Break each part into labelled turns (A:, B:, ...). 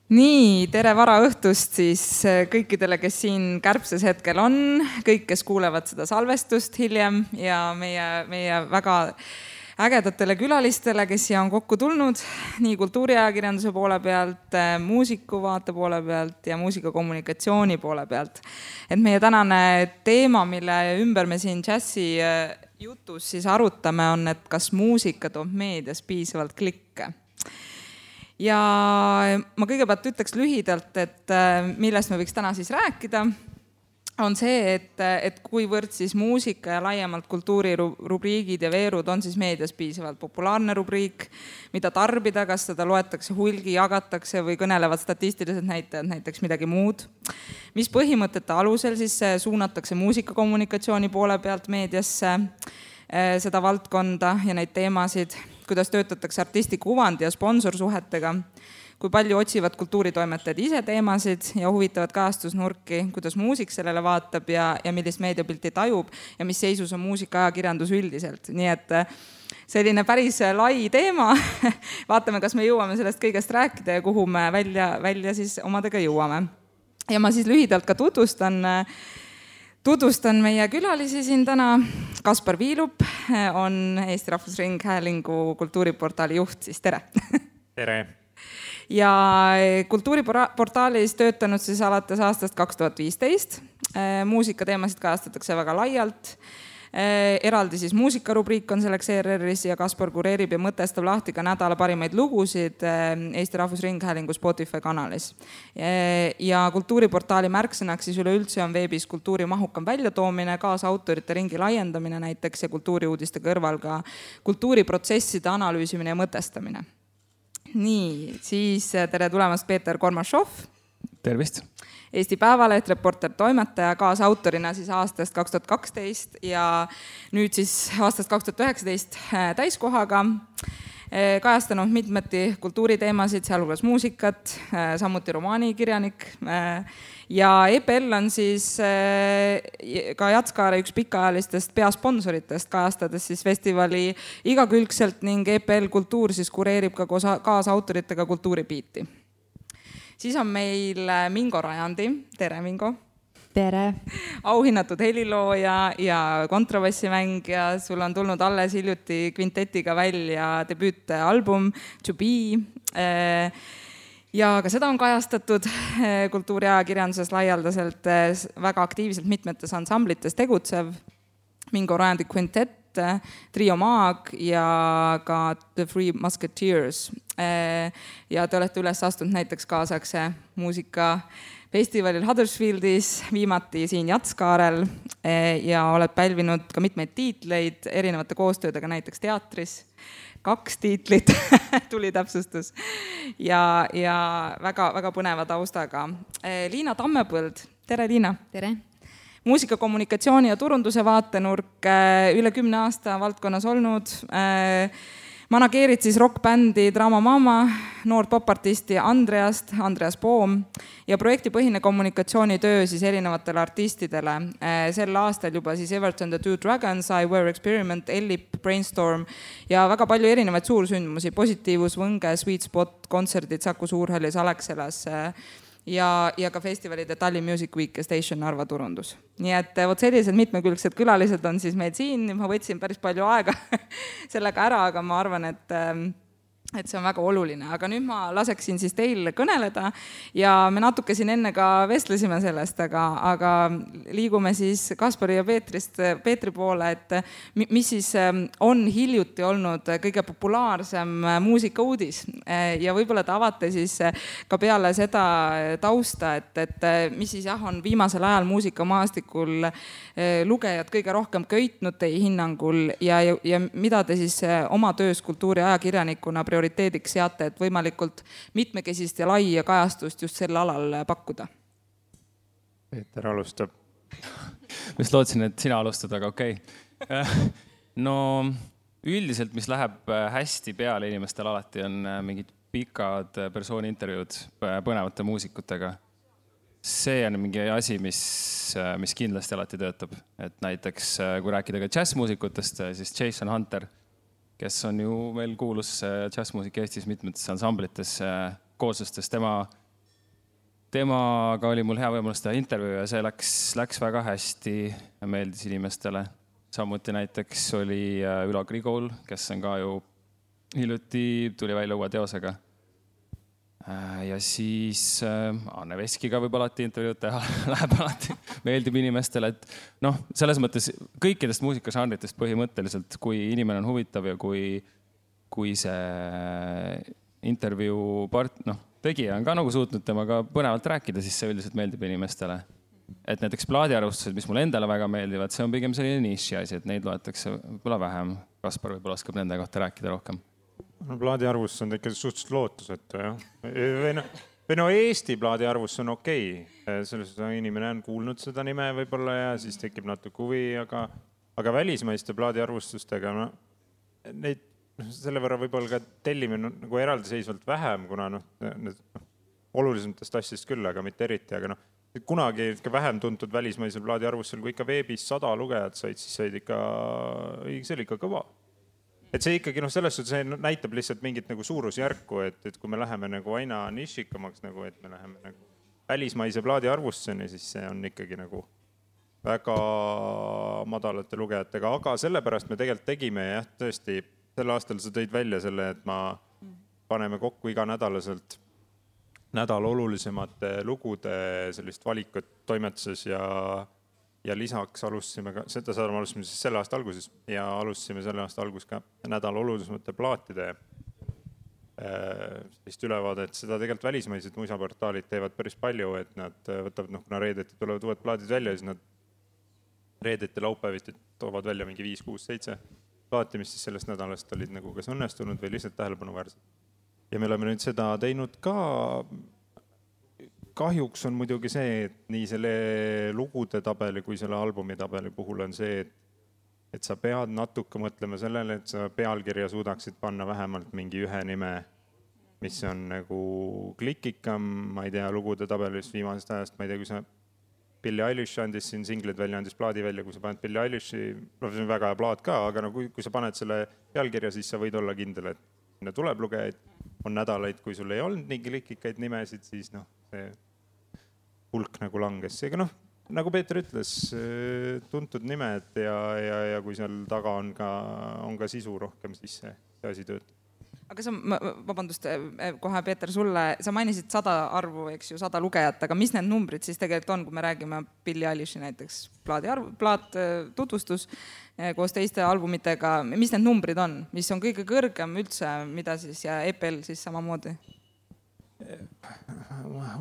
A: Nii, tere varaõhtust siis kõikidele, kes siin kärbses hetkel on, kõik, kes kuulevad seda salvestust hiljem ja meie väga ägedatele külalistele, kes siia on kokku tulnud, nii kultuuriajakirjanduse poole pealt, muusikuvaate poole pealt ja muusikakommunikatsiooni poole pealt. Et meie tänane teema, mille ümber me siin džässi jutus siis arutame, on, et kas muusika toob meedias piisavalt klikke. Ja ma kõigepealt ütleks lühidalt, et millest me võiks täna siis rääkida, on see, et kuivõrd siis muusika ja laiemalt kultuurirubriigid ja veerud on siis meedias piisavalt populaarne rubriik, mida tarbida, kas seda loetakse hulgi, jagatakse või kõnelevad statistilised näitajad näiteks midagi muud. Mis põhimõtete alusel siis suunatakse muusikakommunikatsiooni poole pealt meediasse seda valdkonda ja neid teemasid, kuidas töötatakse artisti kuvandi ja sponsorsuhetega, kui palju otsivad kultuuritoimetajad ise teemasid ja huvitavad kajastusnurki, kuidas muusik sellele vaatab ja millist meediapilti tajub ja mis seisus on muusikaajakirjandus üldiselt. Nii et selline päris lai teema. Vaatame, kas me jõuame sellest kõigest rääkida ja kuhu me välja siis omadega jõuame. Ja ma siis lühidalt ka tutvustan meie külalisi siin täna. Kaspar Viilup on Eesti Rahvusringhäälingu kultuuriportaali juht, siis tere!
B: Tere!
A: Ja kultuuriportaalis töötanud siis alates aastast 2015. Muusikateemasid kajastatakse väga laialt. Eraldi siis muusikarubriik on selleks ERR-is ja Kaspar kureerib ja mõtestab lahti ka nädala parimaid lugusid Eesti Rahvusringhäälingu Spotify kanalis. Ja kultuuriportaali märksõnaks siis üleüldse on veebis kultuuri mahukam väljatoomine, kaasautorite ringi laiendamine näiteks ja kultuuriuudiste kõrval ka kultuuriprotsesside analüüsimine ja mõtestamine. Nii, siis tere tulemast Peeter Kormašov.
B: Tervist!
A: Eesti Päevaleht, reporter, toimetaja, kaasautorina siis aastast 2012 ja nüüd siis aastast 2019 täiskohaga. Kajastanud mitmeti kultuuriteemasid, sealhulgas muusikat, samuti romaanikirjanik. Ja EPL on siis ka Jatskaare üks pikaajalistest peasponsoritest, kajastades siis festivali igakülgselt ning EPL Kultuur siis kureerib ka kaasautoritega kultuuripiiti. Siis on meil Mingo Rajandi. Tere, Mingo!
C: Tere!
A: Auhinnatud helilooja ja kontrabassimängija. Sul on tulnud alles hiljuti kvintetiga välja debüütalbum To Be. Ja ka seda on kajastatud kultuuriajakirjanduses laialdaselt väga aktiivselt mitmetes ansamblites tegutsev. Mingo Rajandi kvintett, Trio Maag ja ka The Three Musketeers. Ja te olete üles astunud näiteks kaasakse muusikafestivalil Huddersfieldis, viimati siin Jatskaarel ja oled pälvinud ka mitmeid tiitleid erinevate koostöödega näiteks teatris. 2 tiitlit tuli täpsustus ja väga põneva taustaga. Liina Tammepõld. Tere, Liina!
C: Tere!
A: Muusikakommunikatsiooni ja turunduse vaatenurk üle 10 aasta valdkonnas olnud. Manageerid siis rockbändi Drama Mama, noort popartisti Andreas Poom ja projektipõhine kommunikatsioonitöö siis erinevatele artistidele. Sel aastal juba siis Everton The Two Dragons, I Wear Experiment, Ellip, Brainstorm ja väga palju erinevaid suursündmusi, Positiivus, Võnge, Sweet Spot, kontserdid Saku Suurhallis, Alexelas ja ka festivalide Tallinn Music Week ja Station Narva turundus. Nii et sellised mitmekülgsed külalised on siis meil siin. Ma võtsin päris palju aega sellega ära, aga ma arvan, et see on väga oluline. Aga nüüd ma laseksin siis teil kõneleda ja me natuke siin enne ka vestlesime sellest, aga liigume siis Kaspari ja Peetri poole, et mis siis on hiljuti olnud kõige populaarsem muusikauudis ja võib-olla te avate siis ka peale seda tausta, et mis siis on viimasel ajal muusikamaastikul lugejad kõige rohkem köitnud teie hinnangul ja mida te siis oma töös kultuuriajakirjanikuna prioriteediks seate, et võimalikult mitmekesist ja laia kajastust just sel alal pakkuda?
B: Peeter alustab. Ma just lootsin, et sina alustad, aga okei. No üldiselt, mis läheb hästi peale inimestel alati on mingid pikad persooni intervjuud põnevate muusikutega. See on mingi asi, mis kindlasti alati töötab. Et näiteks, kui rääkida ka džässmuusikutest, siis Jason Hunter, kes on ju veel kuulus džässmuusik Eestis mitmetes ansamblites kooslustes, tema temaga oli mul hea võimalus teha intervjuu ja see läks väga hästi ja meeldis inimestele. Samuti näiteks oli Ülo Grigol, kes on ka ju hiljuti tuli välja uue teosega. Ja siis Anne Veskiga võib alati intervjuud teha, läheb alati, meeldib inimestele, et selles mõttes kõikidest muusikažanritest põhimõtteliselt, kui inimene on huvitav ja kui see intervjuu tegija on ka nagu suutnud temaga põnevalt rääkida, siis see üldiselt meeldib inimestele. Et näiteks plaadiarvustused, mis mulle endale väga meeldivad, see on pigem selline niši asi, et neid loetakse võib-olla vähem. Kaspar võib-olla oskab nende kohta rääkida rohkem.
C: Plaadiarvustus on ikka suhteliselt lootusetu, jah. Või Eesti plaadiarvustus on okei. Selles inimene on kuulnud seda nime võib-olla ja siis tekib natuke huvi, aga välismaiste plaadiarvustustega neid selle võrra võib-olla ka tellime nagu eraldiseisvalt vähem, kuna olulisematest asjast küll, aga mitte eriti, aga kunagi vähem tuntud välismaisel plaadiarvustusel, kui ikka veebis 100 lugejat said, siis said ikka, see oli ikka kõva. Et see ikkagi selles suhtes see näitab lihtsalt mingit nagu suurusjärku, et kui me läheme nagu aina nišikamaks, nagu, et me läheme nagu välismaise plaadiarvustuseni, siis see on ikkagi nagu väga madalate lugejatega, aga sellepärast me tegelikult tegime jah, tõesti, sel aastal sa tõid välja selle, et paneme kokku iganädalaselt nädal olulisemate lugude sellist valikut toimetuses ja lisaks alustasime ka, seda alustasime siis selle aasta alguses ja alustasime selle aasta algus ka nädal olulisemate plaatide sellist ülevaadet. Seda tegelikult välismaised muisaportaalid teevad päris palju, et nad võtavad, kuna reedeti tulevad uued plaadid välja, siis nad reedeti laupäeviti toovad välja mingi 5, 6, 7 plaati, mis siis sellest nädalast olid nagu kas õnnestunud või lihtsalt tähelepanuväärsed. Ja me oleme nüüd seda teinud ka. Kahjuks on muidugi see, et nii selle lugude tabeli kui selle albumi tabeli puhul on see, et sa pead natuke mõtlema sellele, et sa pealkirja suudaksid panna vähemalt mingi ühe nime, mis on nagu klikikam, ma ei tea, lugude tabelis viimasest ajast, ma ei tea, kui sa Billie Eilish andis siin singlid välja, andis plaadi välja, kui sa paned Billie Eilishi, see on väga hea plaat ka, aga kui sa paned selle pealkirja, siis sa võid olla kindel, et sinna tuleb lugejaid, on nädalaid, kui sul ei olnud nii klikikaid nimesid, siis see hulk nagu langes. Seega nagu Peeter ütles, tuntud nimed ja kui seal taga on ka sisu rohkem, siis see asi töötab.
A: Aga vabandust, kohe Peeter sulle, sa mainisid 100 arvu, eks ju, 100 lugejat, aga mis need numbrid siis tegelikult on, kui me räägime Billie Eilishi näiteks plaat tutvustus koos teiste albumitega, mis need numbrid on, mis on kõige kõrgem üldse, mida siis ja EPL siis samamoodi?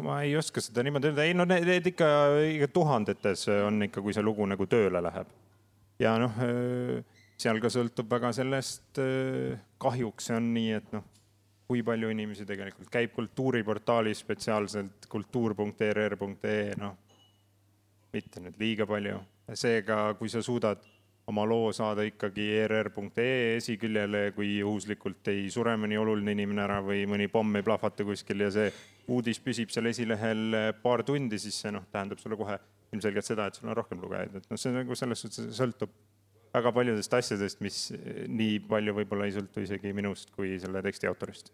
C: Ma ei oska seda niimoodi öelda, need ikka tuhandetes on ikka, kui see lugu nagu tööle läheb. Ja seal ka sõltub väga sellest, kahjuks see on nii, et kui palju inimesi tegelikult käib kultuuriportaalis spetsiaalselt kultuur.rr.ee, mitte nüüd liiga palju. Seega, kui sa suudad oma loo saada ikkagi rr.ee esiküljele, kui juhuslikult ei sure mõni oluline inimene ära või mõni pomm ei plahvata kuskil ja see uudis püsib seal esilehel paar tundi, siis see tähendab sulle kohe ilmselgelt seda, et sul on rohkem lugejaid. See nagu selles suhtes sõltub väga paljudest asjadest, mis nii palju võib-olla ei sõltu isegi minust kui selle teksti autorist.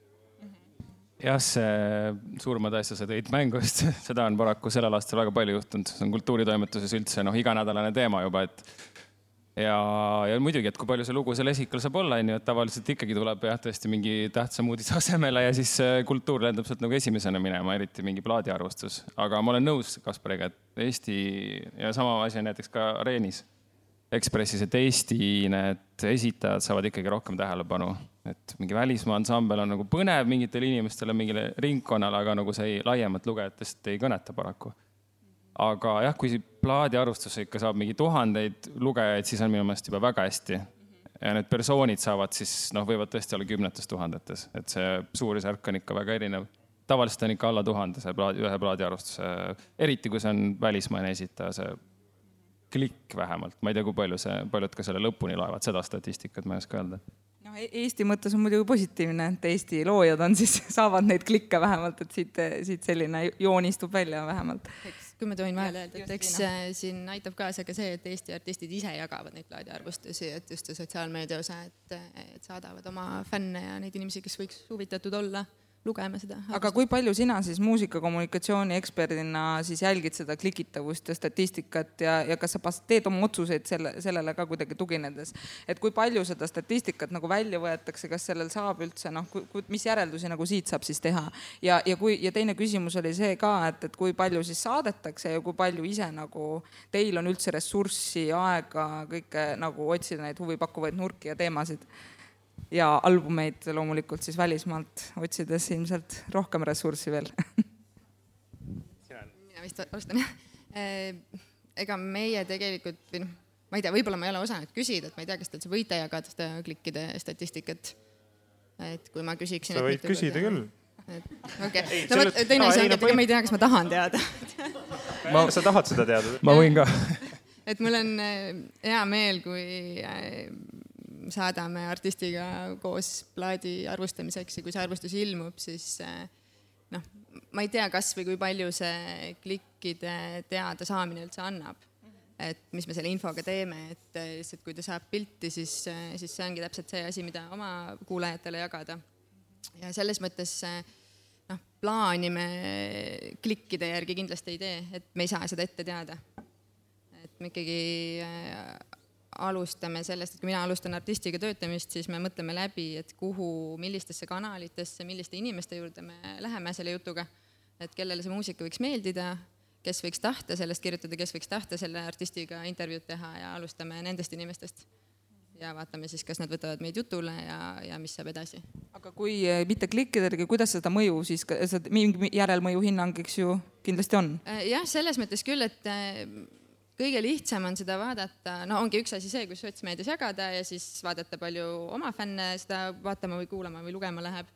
B: Jah, see suurmad asja sa tõid mängust, seda on paraku sellel aastal väga palju juhtunud. See on kultuuritoimetuses üldse iganädalane teema juba, et ja muidugi, et kui palju see lugu seal esikal saab olla, et tavaliselt ikkagi tuleb tõesti mingi tähtsam uudis asemele ja siis kultuur lendab sealt nagu esimesena minema, eriti mingi plaadiarvustus. Aga ma olen nõus Kaspariga, et Eesti ja sama asi on näiteks ka Areenis Ekspressis, et Eesti need esitajad saavad ikkagi rohkem tähelepanu. Et mingi välismaa ansambel on nagu põnev mingitele inimestele, mingile ringkonnale, aga nagu see laiemat lugejatest ei kõneta paraku. Aga jah, kui plaadiarvustus ikka saab mingi tuhandeid lugejaid, siis on minu meelest juba väga hästi. Ja need persoonid saavad siis, võivad tõesti olla 10 000, et see suurusjärk on ikka väga erinev. Tavaliselt on ikka alla 1000 see ühe plaadiarvustuse, eriti kui see on välismaine esitaja, see klikk vähemalt. Ma ei tea, kui paljud ka selle lõpuni laevad, seda statistikat ma ei oska öelda.
A: Eesti mõttes on muidugi positiivne, et Eesti loojad on siis, saavad neid klikke vähemalt, et siit selline joonistub välja vähemalt.
D: Kui me tohin vahele öelda, et eks siin aitab kaasa ka see, et Eesti artistid ise jagavad neid plaadiarvustusi, et just sotsiaalmeedia osa, et saadavad oma fänne ja neid inimesi, kes võiks huvitatud olla lugema seda.
A: Aga kui palju sina siis muusikakommunikatsiooni eksperdina siis jälgid seda klikitavust ja statistikat ja kas sa teed oma otsuseid sellele ka kuidagi tuginedes? Et kui palju seda statistikat nagu välja võetakse, kas sellel saab üldse, mis järeldusi nagu siit saab siis teha? Ja teine küsimus oli see ka, et kui palju siis saadetakse ja kui palju ise nagu teil on üldse ressurssi, aega, kõike nagu otsida neid huvipakkuvaid nurki ja teemasid? Ja albumeid loomulikult siis välismaalt otsides ilmselt rohkem ressurssi veel.
D: Mina vist alustan, jah. Ega meie tegelikult, ma ei tea, võib-olla ma ei ole osanud küsida, et ma ei tea, kas te võite jagada seda klikkide statistikat. Et kui ma küsiksin...
C: Sa võid küsida küll.
D: Okei. Teine asi on, et ega ma ei tea, kas ma tahan teada.
C: Sa tahad seda teada?
B: Ma võin ka.
D: Et mul on hea meel, kui saadame artistiga koos plaadi arvustamiseks ja kui see arvustus ilmub, siis ma ei tea, kas või kui palju see klikkide teada saamine üldse annab. Et mis me selle infoga teeme, et kui ta saab pilti, siis see ongi täpselt see asi, mida oma kuulajatele jagada. Ja selles mõttes plaani me klikkide järgi kindlasti ei tee, et me ei saa seda ette teada. Et me ikkagi alustame sellest, et kui mina alustan artistiga töötamist, siis me mõtleme läbi, et millistesse kanalitesse, milliste inimeste juurde me läheme selle jutuga, et kellele see muusika võiks meeldida, kes võiks tahta sellest kirjutada, kes võiks tahta selle artistiga intervjuud teha ja alustame nendest inimestest. Ja vaatame siis, kas nad võtavad meid jutule ja mis saab edasi.
A: Aga kui mitte klikkidega, kuidas seda mõju siis, mingi järelmõju hinnang, eks ju, kindlasti on?
D: Jah, selles mõttes küll, et kõige lihtsam on seda vaadata, ongi üks asi see, kus sotsmeedias jagada ja siis vaadata palju oma fänne seda vaatama või kuulama või lugema läheb.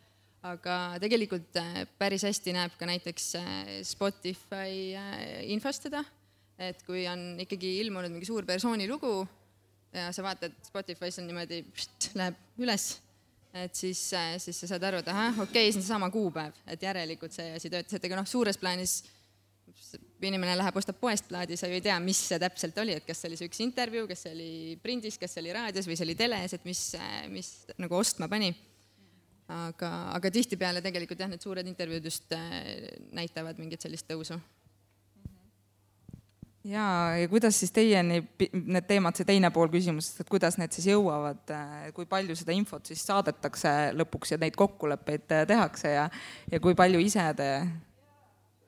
D: Aga tegelikult päris hästi näeb ka näiteks Spotify infost seda, et kui on ikkagi ilmunud mingi suur persooni lugu ja sa vaatad Spotify's on niimoodi, läheb üles, et siis sa saad aru, et okei, see on sama kuupäev, et järelikult see asi töötas, et ega suures plaanis inimene läheb, ostab poest plaadi, sa ju ei tea, mis see täpselt oli, et kas see oli see üks intervjuu, kas see oli prindis, kas see oli raadios või see oli teles, et mis nagu ostma pani. Aga tihtipeale tegelikult jah, need suured intervjuud just näitavad mingit sellist tõusu.
A: Ja kuidas siis teieni need teemad, see teine pool küsimusest, et kuidas need siis jõuavad, kui palju seda infot siis saadetakse lõpuks ja neid kokkuleppeid tehakse ja kui palju ise te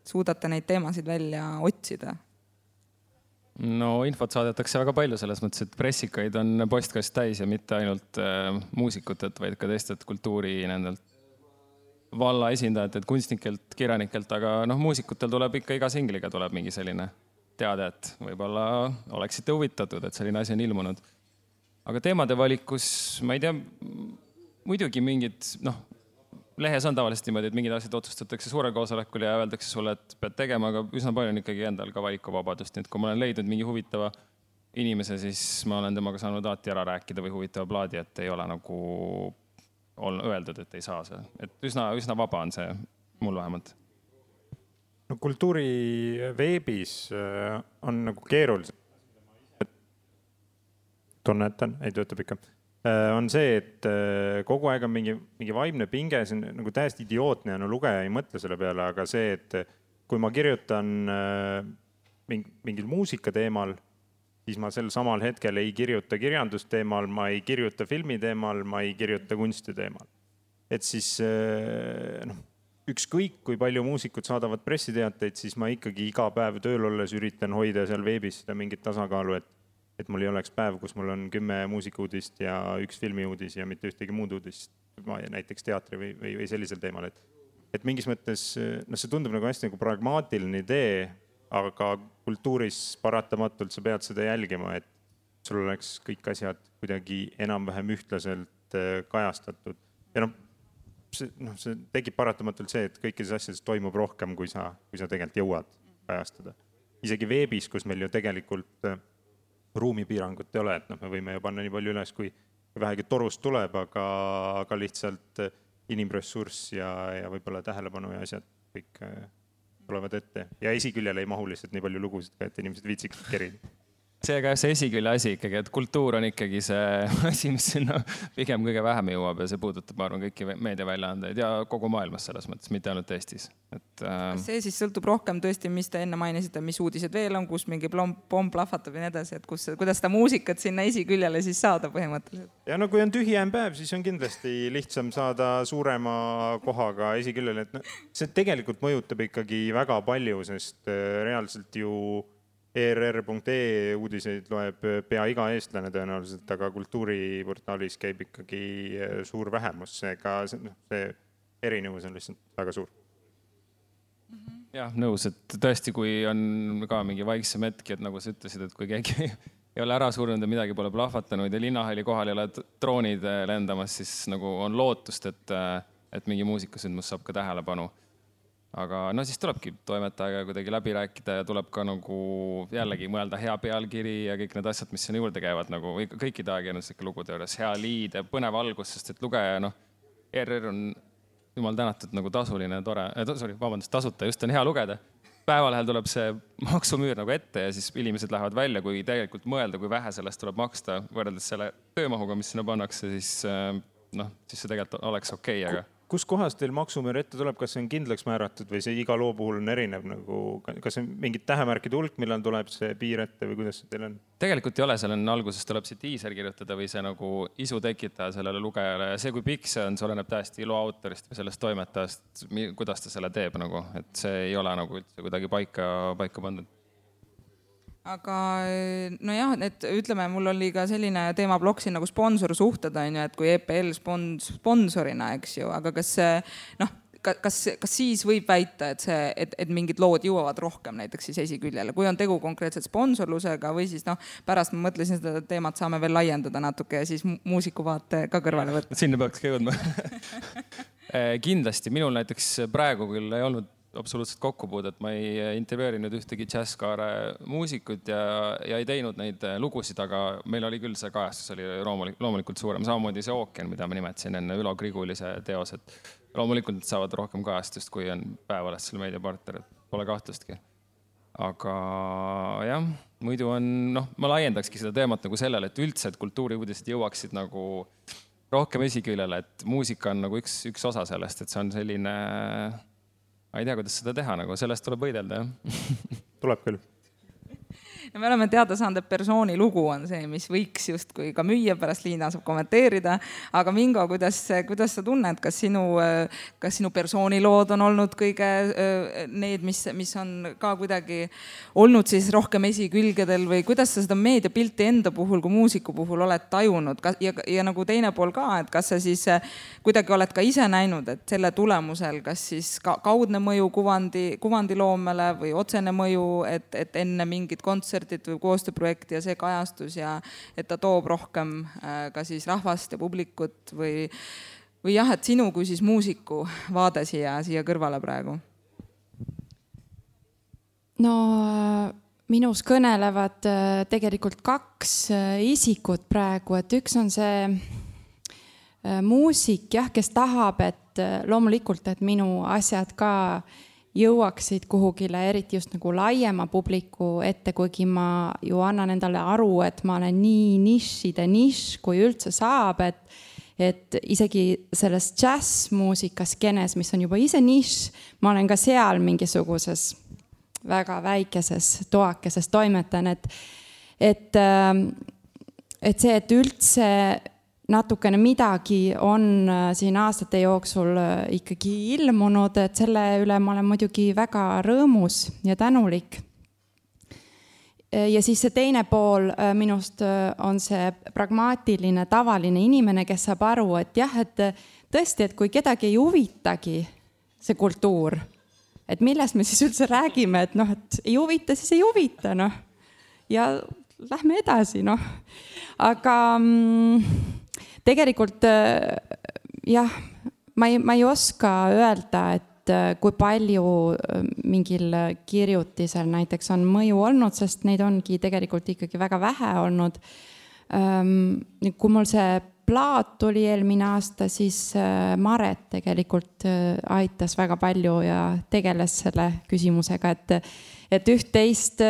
A: suudate neid teemasid välja otsida?
B: No infot saadetakse väga palju selles mõttes, et pressikaid on postkast täis ja mitte ainult muusikutelt, vaid ka teistelt kultuuri nendelt valla esindajatelt, kunstnikelt, kirjanikelt, aga muusikutel tuleb ikka iga singliga tuleb mingi selline teade, et võib-olla oleksite huvitatud, et selline asi on ilmunud. Aga teemade valikus, ma ei tea, muidugi mingid, lehes on tavaliselt niimoodi, et mingid asjad otsustatakse suurel koosolekul ja öeldakse sulle, et pead tegema, aga üsna palju on ikkagi endal ka valikuvabadust. Nii et kui ma olen leidnud mingi huvitava inimese, siis ma olen temaga saanud alati ära rääkida või huvitava plaadi, et ei ole nagu öeldud, et ei saa see. Et üsna vaba on see, mul vähemalt.
C: No kultuuri veebis on nagu keerulised. Tunnetan, ei töötab ikka. On see, et kogu aeg on mingi vaimne pinge, see on nagu täiesti idiootne ja lugeja ei mõtle selle peale, aga see, et kui ma kirjutan mingil muusika teemal, siis ma sel samal hetkel ei kirjuta kirjandusteemal, ma ei kirjuta filmi teemal, ma ei kirjuta kunsti teemal. Et siis ükskõik, kui palju muusikud saadavad pressiteateid, siis ma ikkagi iga päev tööl olles üritan hoida seal veebis seda mingit tasakaalu, et mul ei oleks päev, kus mul on 10 muusikuudist ja 1 filmiuudis ja mitte ühtegi muud uudist, näiteks teatri või sellisel teemal. Et mingis mõttes, see tundub nagu hästi nagu pragmaatiline idee, aga kultuuris paratamatult sa pead seda jälgima, et sul oleks kõik asjad kuidagi enam-vähem ühtlaselt kajastatud. Ja see tekib paratamatult see, et kõikides asjades toimub rohkem, kui sa tegelikult jõuad kajastada. Isegi veebis, kus meil ju tegelikult ruumipiirangut ei ole, et me võime ju panna nii palju üles, kui vähegi torust tuleb, aga lihtsalt inimressurss ja võib-olla tähelepanu ja asjad kõik tulevad ette. Ja esiküljel ei mahu lihtsalt nii palju lugusid, et inimesed viitsiks kerida.
B: see esikülje asi ikkagi, et kultuur on ikkagi see asi, mis sinna pigem kõige vähem jõuab ja see puudutab, ma arvan, kõiki meediaväljaandeid ja kogu maailmas selles mõttes, mitte ainult Eestis.
A: See siis sõltub rohkem tõesti, mis te enne mainisite, mis uudised veel on, kus mingi pomm plahvatab ja nii edasi, et kuidas seda muusikat sinna esiküljele siis saada põhimõtteliselt.
C: Ja no kui on tühjem päev, siis on kindlasti lihtsam saada suurema kohaga esiküljele, et see tegelikult mõjutab ikkagi väga palju, sest reaalselt ju ERR.ee uudiseid loeb pea iga eestlane tõenäoliselt, aga kultuuriportaalis käib ikkagi suur vähemus, seega see erinevus on lihtsalt väga suur.
B: Jah, nõus, et tõesti, kui on ka mingi vaiksem hetki, et nagu sa ütlesid, et kui keegi ei ole ära surnud ja midagi pole plahvatanud ja linnahalli kohal ei ole droonid lendamas, siis nagu on lootust, et mingi muusikasündmus saab ka tähelepanu. Aga no siis tulebki toimetajaga kuidagi läbi rääkida ja tuleb ka nagu jällegi mõelda hea pealkiri ja kõik need asjad, mis sinna juurde käivad, nagu kõikide ajakirjanduslike lugude juures, hea liid ja põnev algus, sest et lugeja, ERR on jumal tänatud nagu tasuline, tore, tasuta, just on hea lugeda. Päevalehel tuleb see maksumüür nagu ette ja siis inimesed lähevad välja, kui tegelikult mõelda, kui vähe sellest tuleb maksta, võrreldes selle töömahuga, mis sinna pannakse, siis see tegelikult oleks okei, aga
C: kus kohas teil maksumüür ette tuleb, kas see on kindlaks määratud või see iga loo puhul on erinev, nagu, kas see on mingid tähemärkide hulk, millal tuleb see piir ette või kuidas see teil on?
B: Tegelikult ei ole, seal on alguses tuleb see teaser kirjutada või see nagu isu tekitaja sellele lugejale ja see, kui pikk see on, see oleneb täiesti loo autorist või sellest toimetajast, kuidas ta selle teeb, nagu, et see ei ole nagu üldse kuidagi paika pandud.
A: Aga nojah, et ütleme, mul oli ka selline teemablokk siin nagu sponsorsuhted, et kui EPL sponsorina, eks ju, aga kas siis võib väita, et mingid lood jõuavad rohkem näiteks siis esiküljele, kui on tegu konkreetselt sponsorlusega või siis pärast ma mõtlesin seda teemat saame veel laiendada natuke ja siis muusikuvaate ka kõrvale võtta.
B: Sinna peaks ka jõudma. Kindlasti, minul näiteks praegu küll ei olnud absoluutselt kokkupuudet, ma ei intervjueerinud ühtegi džässkaare muusikut ja ei teinud neid lugusid, aga meil oli küll see kajastus, oli loomulikult suurem. Samamoodi see Ookean, mida ma nimetasin enne Ülo Grigulise teos, et loomulikult saavad rohkem kajastust, kui on Päevalehest selle meediapartner, et pole kahtlustki. Aga jah, muidu on, ma laiendakski seda teemat nagu sellele, et üldse, et kultuuriuudised jõuaksid nagu rohkem esiküljele, et muusika on nagu üks osa sellest, et see on selline ma ei tea, kuidas seda teha, nagu sellest tuleb võidelda, jah.
C: Tuleb küll.
A: Ja me oleme teada saanud, et persooni lugu on see, mis võiks justkui ka müüa, pärast Liina saab kommenteerida. Aga Mingo, kuidas sa tunned, kas sinu persoonilood on olnud kõige need, mis on ka kuidagi olnud siis rohkem esikülgedel või kuidas sa seda meediapilti enda puhul kui muusiku puhul oled tajunud ja nagu teine pool ka, et kas sa siis kuidagi oled ka ise näinud, et selle tulemusel kas siis kaudne mõju kuvandiloomele või otsene mõju, et enne mingit kontsertit või koostööprojekti ja see kajastus ja et ta toob rohkem ka siis rahvast ja publikut või jah, et sinu kui siis muusiku vaade siia kõrvale praegu?
E: No minus kõnelevad tegelikult kaks isikut praegu, et üks on see muusik, jah, kes tahab, et loomulikult, et minu asjad ka jõuaksid kuhugile, eriti just nagu laiema publiku ette, kuigi ma ju annan endale aru, et ma olen nii nišide nišš, kui üldse saab, et isegi selles džässmuusikas skenes, mis on juba ise nišš, ma olen ka seal mingisuguses väga väikeses toakeses toimetan, et see, et üldse natukene midagi on siin aastate jooksul ikkagi ilmunud, et selle üle ma olen muidugi väga rõõmus ja tänulik. Ja siis see teine pool minust on see pragmaatiline, tavaline inimene, kes saab aru, et jah, et tõesti, et kui kedagi ei huvitagi see kultuur, et millest me siis üldse räägime, et et ei huvita, siis ei huvita, ja lähme edasi, Aga tegelikult jah, ma ei oska öelda, et kui palju mingil kirjutisel näiteks on mõju olnud, sest neid ongi tegelikult ikkagi väga vähe olnud. Kui mul see plaat tuli eelmine aasta, siis Maret tegelikult aitas väga palju ja tegeles selle küsimusega, et üht-teist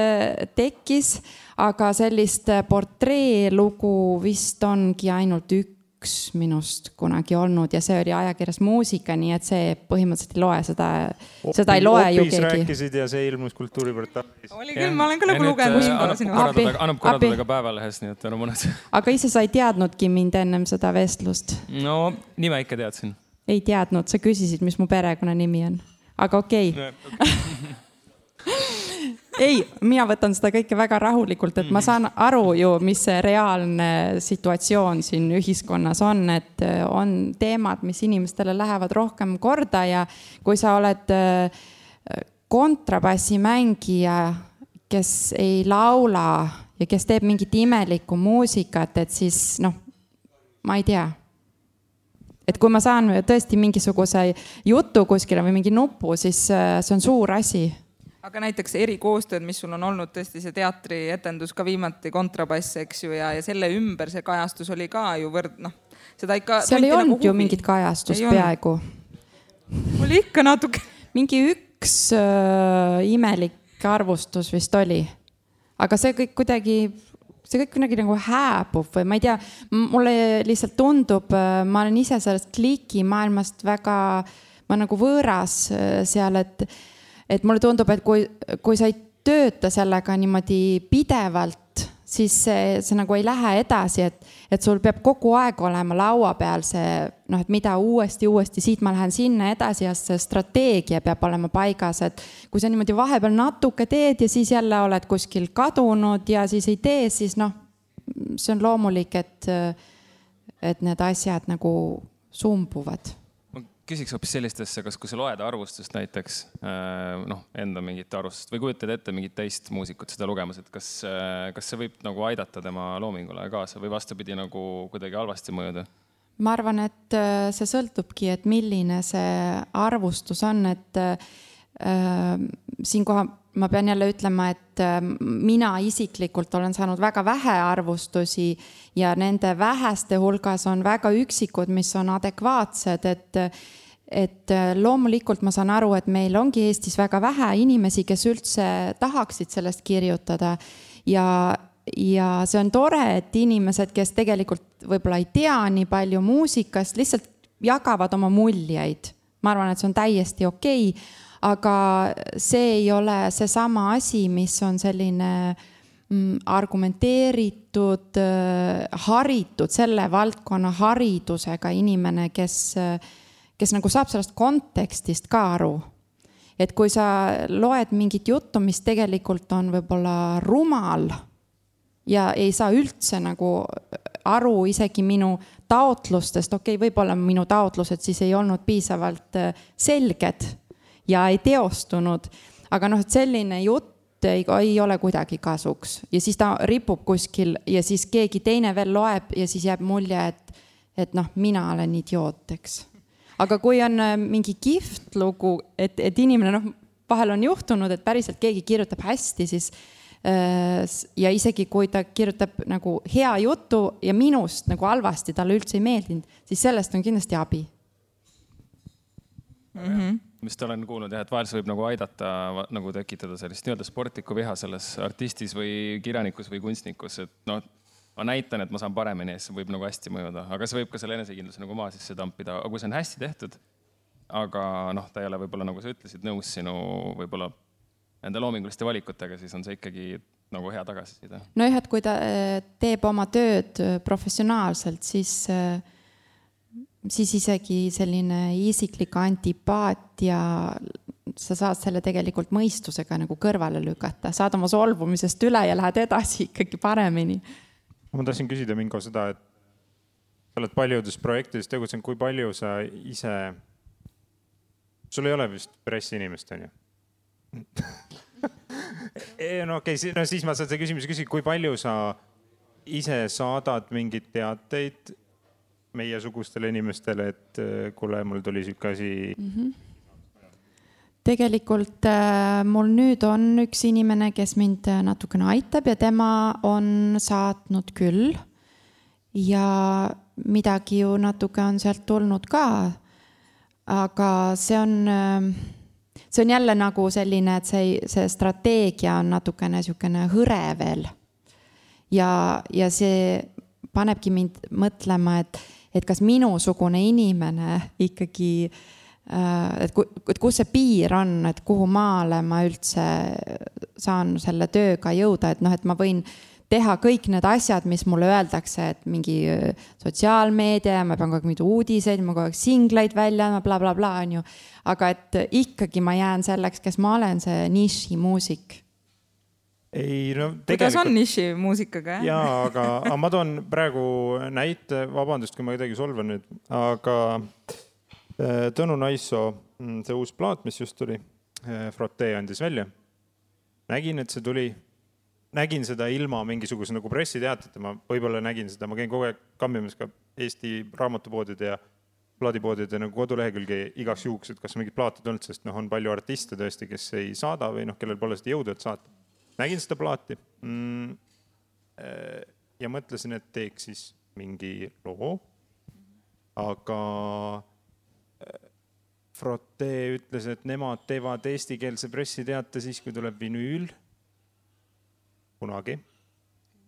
E: tekkis, aga sellist portreelugu vist ongi ainult üks minust kunagi olnud ja see oli ajakirjas Muusika, nii et see põhimõtteliselt ei loe, seda ei loe ju keegi.
C: Rääkisid ja see ilmus Kultuuriportaalis.
A: Oli küll, ma olen ka nagu lugenud.
B: Annab korraldada ka päevalehes, nii et on mõned.
E: Aga ise sa ei teadnudki mind ennem seda vestlust?
B: No, nime ikka teadsin.
E: Ei teadnud, sa küsisid, mis mu perekonnanimi on. Aga okei. Ei, mina võtan seda kõike väga rahulikult, et ma saan aru ju, mis see reaalne situatsioon siin ühiskonnas on, et on teemad, mis inimestele lähevad rohkem korda ja kui sa oled kontrabassimängija, kes ei laula ja kes teeb mingit imelikku muusikat, et siis ma ei tea. Et kui ma saan tõesti mingisuguse jutu kuskile või mingi nupu, siis see on suur asi.
A: Aga näiteks erikoostööd, mis sul on olnud tõesti see teatrietendus ka viimati kontrabass, eks ju, ja selle ümber see kajastus oli ka ju seda ikka...
E: Seal ei olnud ju mingit kajastust peaaegu.
A: Oli ikka natuke.
E: Mingi üks imelik arvustus vist oli. Aga see kõik kuidagi nagu hääbub või ma ei tea, mulle lihtsalt tundub, ma olen ise sellest klikimaailmast väga, ma nagu võõras seal, et mulle tundub, et kui sa ei tööta sellega niimoodi pidevalt, siis see nagu ei lähe edasi, et sul peab kogu aeg olema laua peal see, et mida uuesti, siit ma lähen sinna edasi ja see strateegia peab olema paigas, et kui sa niimoodi vahepeal natuke teed ja siis jälle oled kuskil kadunud ja siis ei tee, siis see on loomulik, et need asjad nagu sumbuvad.
B: Küsiks hoopis sellistesse, kas kui sa loed arvustust näiteks, enda mingit arvustust või kujutad ette mingit teist muusikut seda lugemas, et kas see võib nagu aidata tema loomingule kaasa või vastupidi nagu kuidagi halvasti mõjuda?
E: Ma arvan, et see sõltubki, et milline see arvustus on, et siinkohal ma pean jälle ütlema, et mina isiklikult olen saanud väga vähe arvustusi ja nende väheste hulgas on väga üksikud, mis on adekvaatsed, et loomulikult ma saan aru, et meil ongi Eestis väga vähe inimesi, kes üldse tahaksid sellest kirjutada ja see on tore, et inimesed, kes tegelikult võib-olla ei tea nii palju muusikast, lihtsalt jagavad oma muljeid. Ma arvan, et see on täiesti okei, aga see ei ole see sama asi, mis on selline argumenteeritud, haritud, selle valdkonna haridusega inimene, kes nagu saab sellest kontekstist ka aru. Et kui sa loed mingit juttu, mis tegelikult on võib-olla rumal ja ei saa üldse nagu aru isegi minu taotlustest, võib-olla minu taotlused siis ei olnud piisavalt selged ja ei teostunud, aga et selline jutt ei ole kuidagi kasuks ja siis ta ripub kuskil ja siis keegi teine veel loeb ja siis jääb mulje, et mina olen idioot, eks. Aga kui on mingi kihvt lugu, et inimene vahel on juhtunud, et päriselt keegi kirjutab hästi, siis ja isegi kui ta kirjutab nagu hea jutu ja minust nagu halvasti, talle üldse ei meeldinud, siis sellest on kindlasti abi.
B: Mis ta olen kuulnud, et vahel see võib nagu aidata nagu tekitada sellist nii-öelda sportlikku viha selles artistis või kirjanikus või kunstnikus, et ma näitan, et ma saan paremini ja see võib nagu hästi mõjuda, aga see võib ka selle enesekindluse nagu maa sisse tampida, aga kui see on hästi tehtud, aga ta ei ole võib-olla, nagu sa ütlesid, nõus sinu võib-olla nende loominguliste valikutega, siis on see ikkagi nagu hea tagasiside.
E: Et kui ta teeb oma tööd professionaalselt, siis isegi selline isiklik antipaatia, sa saad selle tegelikult mõistusega nagu kõrvale lükata, saad oma solvumisest üle ja lähed edasi ikkagi paremini.
C: Ma tahtsin küsida Mingo seda, et sa oled paljudes projektides tegutsenud, kui palju sa ise, sul ei ole vist pressiinimest, on ju? Siis ma saan seda küsimuse küsida, kui palju sa ise saadad mingid teateid meiesugustele inimestele, et kuule, mul tuli siuke asi. Tegelikult mul nüüd on üks inimene, kes mind natukene aitab ja tema on saatnud küll
E: ja midagi ju natuke on sealt tulnud ka. Aga see on jälle nagu selline, et see strateegia on natukene niisugune hõre veel. Ja see panebki mind mõtlema, et kas minusugune inimene ikkagi, et kus see piir on, et kuhu maale ma üldse saan selle tööga jõuda, et et ma võin teha kõik need asjad, mis mulle öeldakse, et mingi sotsiaalmeedia, ma pean kogu aeg mingi uudiseid, ma kogu aeg singleid välja, bla, bla, bla, on ju. Aga et ikkagi ma jään selleks, kes ma olen, see nišimuusik.
C: Ei, no
A: kuidas on nišimuusikaga?
C: Jaa, aga ma toon praegu näite, vabandust, kui ma kuidagi solvan nüüd, aga Tõnu Naisso, see uus plaat, mis just tuli, Frotee andis välja. Nägin, et see tuli. Nägin seda ilma mingisuguse nagu pressiteateta, ma võib-olla nägin seda, ma käin kogu aeg kammimas ka Eesti raamatupoodide ja plaadipoodide nagu kodulehekülge igaks juhuks, et kas mingid plaatid olnud, sest on palju artiste tõesti, kes ei saada või kellel pole seda jõudu, et saata. Nägin seda plaati ja mõtlesin, et teeks siis mingi loo, aga Frotee ütles, et nemad teevad eestikeelse pressiteate siis, kui tuleb vinüül kunagi.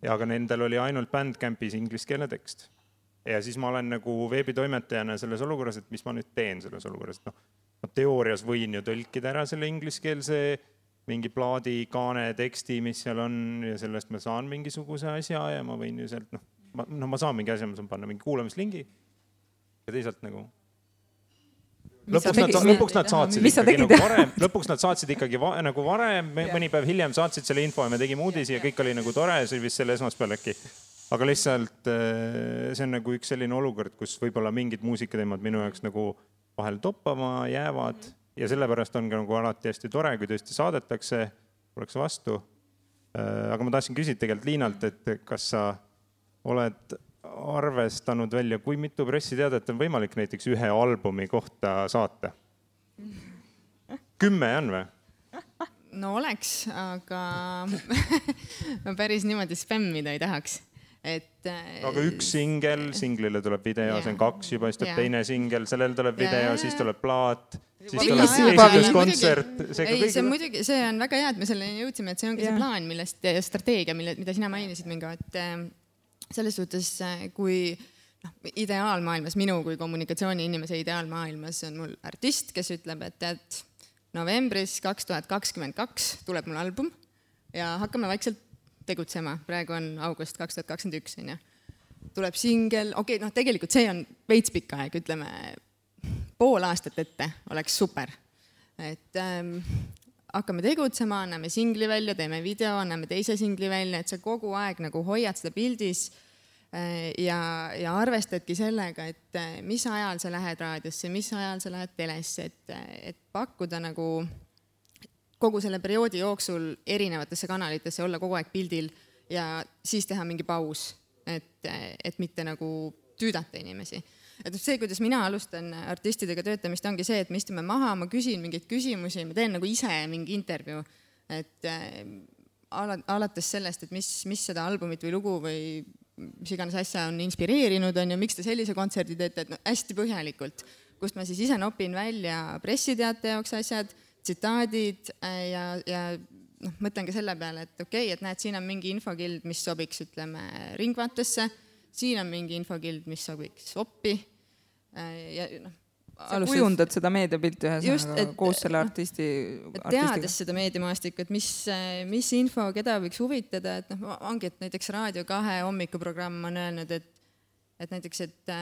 C: Ja aga nendel oli ainult Bandcampis ingliskeelne tekst. Ja siis ma olen nagu veebitoimetajana selles olukorras, et mis ma nüüd teen selles olukorras. Ma teoorias võin ju tõlkida ära selle ingliskeelse mingi plaadi, kaane, teksti, mis seal on ja sellest ma saan mingisuguse asja ja ma võin ju sealt, ma saan mingi asja, ma saan panna mingi kuulamislingi ja teisalt nagu lõpuks nad saatsid ikkagi nagu varem, mõni päev hiljem saatsid selle info ja me tegime uudisi ja kõik oli nagu tore, see oli vist selle esmaspäeval äkki. Aga lihtsalt see on nagu üks selline olukord, kus võib-olla mingid muusikateemad minu jaoks nagu vahel toppama jäävad ja sellepärast on ka nagu alati hästi tore, kui tõesti saadetakse, oleks vastu. Aga ma tahtsin küsida tegelikult Liinalt, et kas sa oled arvestanud välja, kui mitu pressiteadet on võimalik näiteks ühe albumi kohta saata? 10 on või?
D: No oleks, aga ma päris niimoodi spämmida ei tahaks.
C: Aga üks singlile tuleb video, see on 2 juba, siis tuleb teine singel, sellel tuleb video, siis tuleb plaat, siis tuleb esitluskontsert.
D: See muidugi, see on väga hea, et me selleni jõudsime, et see ongi see plaan, millest strateegia, mida sina mainisid mingi, et selles suhtes, kui ideaalmaailmas, minu kui kommunikatsiooni inimese ideaalmaailmas on mul artist, kes ütleb, et novembris 2022 tuleb mul album ja hakkame vaikselt tegutsema. Praegu on august 2021, on ju. Tuleb singel, tegelikult see on veits pikk aeg, ütleme pool aastat ette oleks super. Et hakkame tegutsema, anname singli välja, teeme video, anname teise singli välja, et sa kogu aeg nagu hoiad seda pildis ja arvestadki sellega, et mis ajal sa lähed raadiosse, mis ajal sa lähed telesse, et pakkuda nagu kogu selle perioodi jooksul erinevatesse kanalitesse, olla kogu aeg pildil ja siis teha mingi paus, et mitte nagu tüüdata inimesi. Et see, kuidas mina alustan artistidega töötamist, ongi see, et me istume maha, ma küsin mingeid küsimusi, ma teen nagu ise mingi intervjuu, et alates sellest, et mis seda albumit või lugu või mis iganes asja on inspireerinud, on ju, miks te sellise kontserdi teete, et hästi põhjalikult, kust ma siis ise nopin välja pressiteate jaoks asjad, tsitaadid ja mõtlen ka selle peale, et okei, et näed, siin on mingi infokild, mis sobiks, ütleme, Ringvaatesse, siin on mingi infokild, mis sobiks Oppi ja
A: sa kujundad seda meediapilti ühesõnaga koos selle artisti.
D: Teades seda meediamaastikku, et mis info, keda võiks huvitada, et ongi, et näiteks Raadio 2 hommikuprogramm on öelnud, et näiteks, et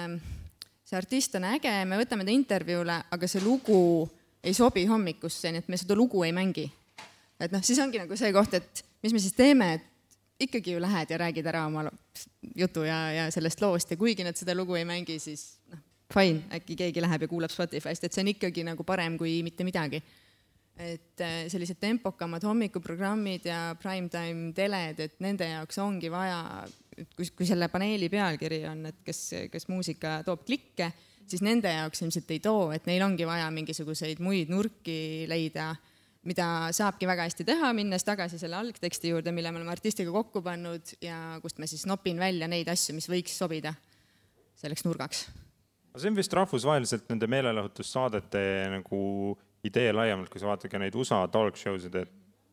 D: see artist on äge, me võtame ta intervjuule, aga see lugu ei sobi hommikusse, nii et me seda lugu ei mängi. Et siis ongi nagu see koht, et mis me siis teeme, et ikkagi ju lähed ja räägid ära oma jutu ja sellest loost ja kuigi nad seda lugu ei mängi, siis fine, äkki keegi läheb ja kuulab Spotify'st, et see on ikkagi nagu parem kui mitte midagi. Et sellised tempokamad hommikuprogrammid ja primetime teled, et nende jaoks ongi vaja, kui selle paneeli pealkiri on, et kes muusika toob klikke, siis nende jaoks ilmselt ei too, et neil ongi vaja mingisuguseid muid nurki leida, mida saabki väga hästi teha, minnes tagasi selle algteksti juurde, mille me oleme artistiga kokku pannud ja kust ma siis nopin välja neid asju, mis võiks sobida selleks nurgaks.
C: See on vist rahvusvaheliselt nende meelelahutussaadete nagu idee laiemalt, kui sa vaatad ka neid USA talk show'sid, et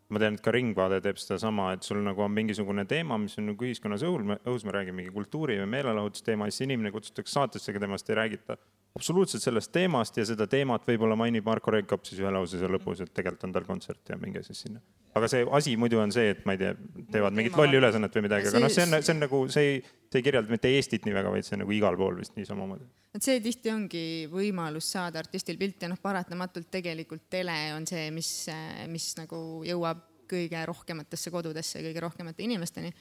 C: ma tean, et ka Ringvaade teeb seda sama, et sul nagu on mingisugune teema, mis on nagu ühiskonnas õhus, me räägime mingi kultuuri või meelelahutusteema, siis inimene kutsutakse saatesse, aga temast ei räägita absoluutselt sellest teemast ja seda teemat võib-olla mainib Marko Reikop siis ühe lause seal lõpus, et tegelikult on tal kontsert ja minge siis sinna. Aga see asi muidu on see, et ma ei tea, teevad mingit lolli ülesannet või midagi, aga see on nagu, see ei kirjelda mitte Eestit nii väga, vaid see on nagu igal pool vist nii samamoodi.
D: Et see tihti ongi võimalus saada artistil pilti ja paratamatult tegelikult tele on see, mis nagu jõuab kõige rohkematesse kodudesse, kõige rohkemate inimesteni.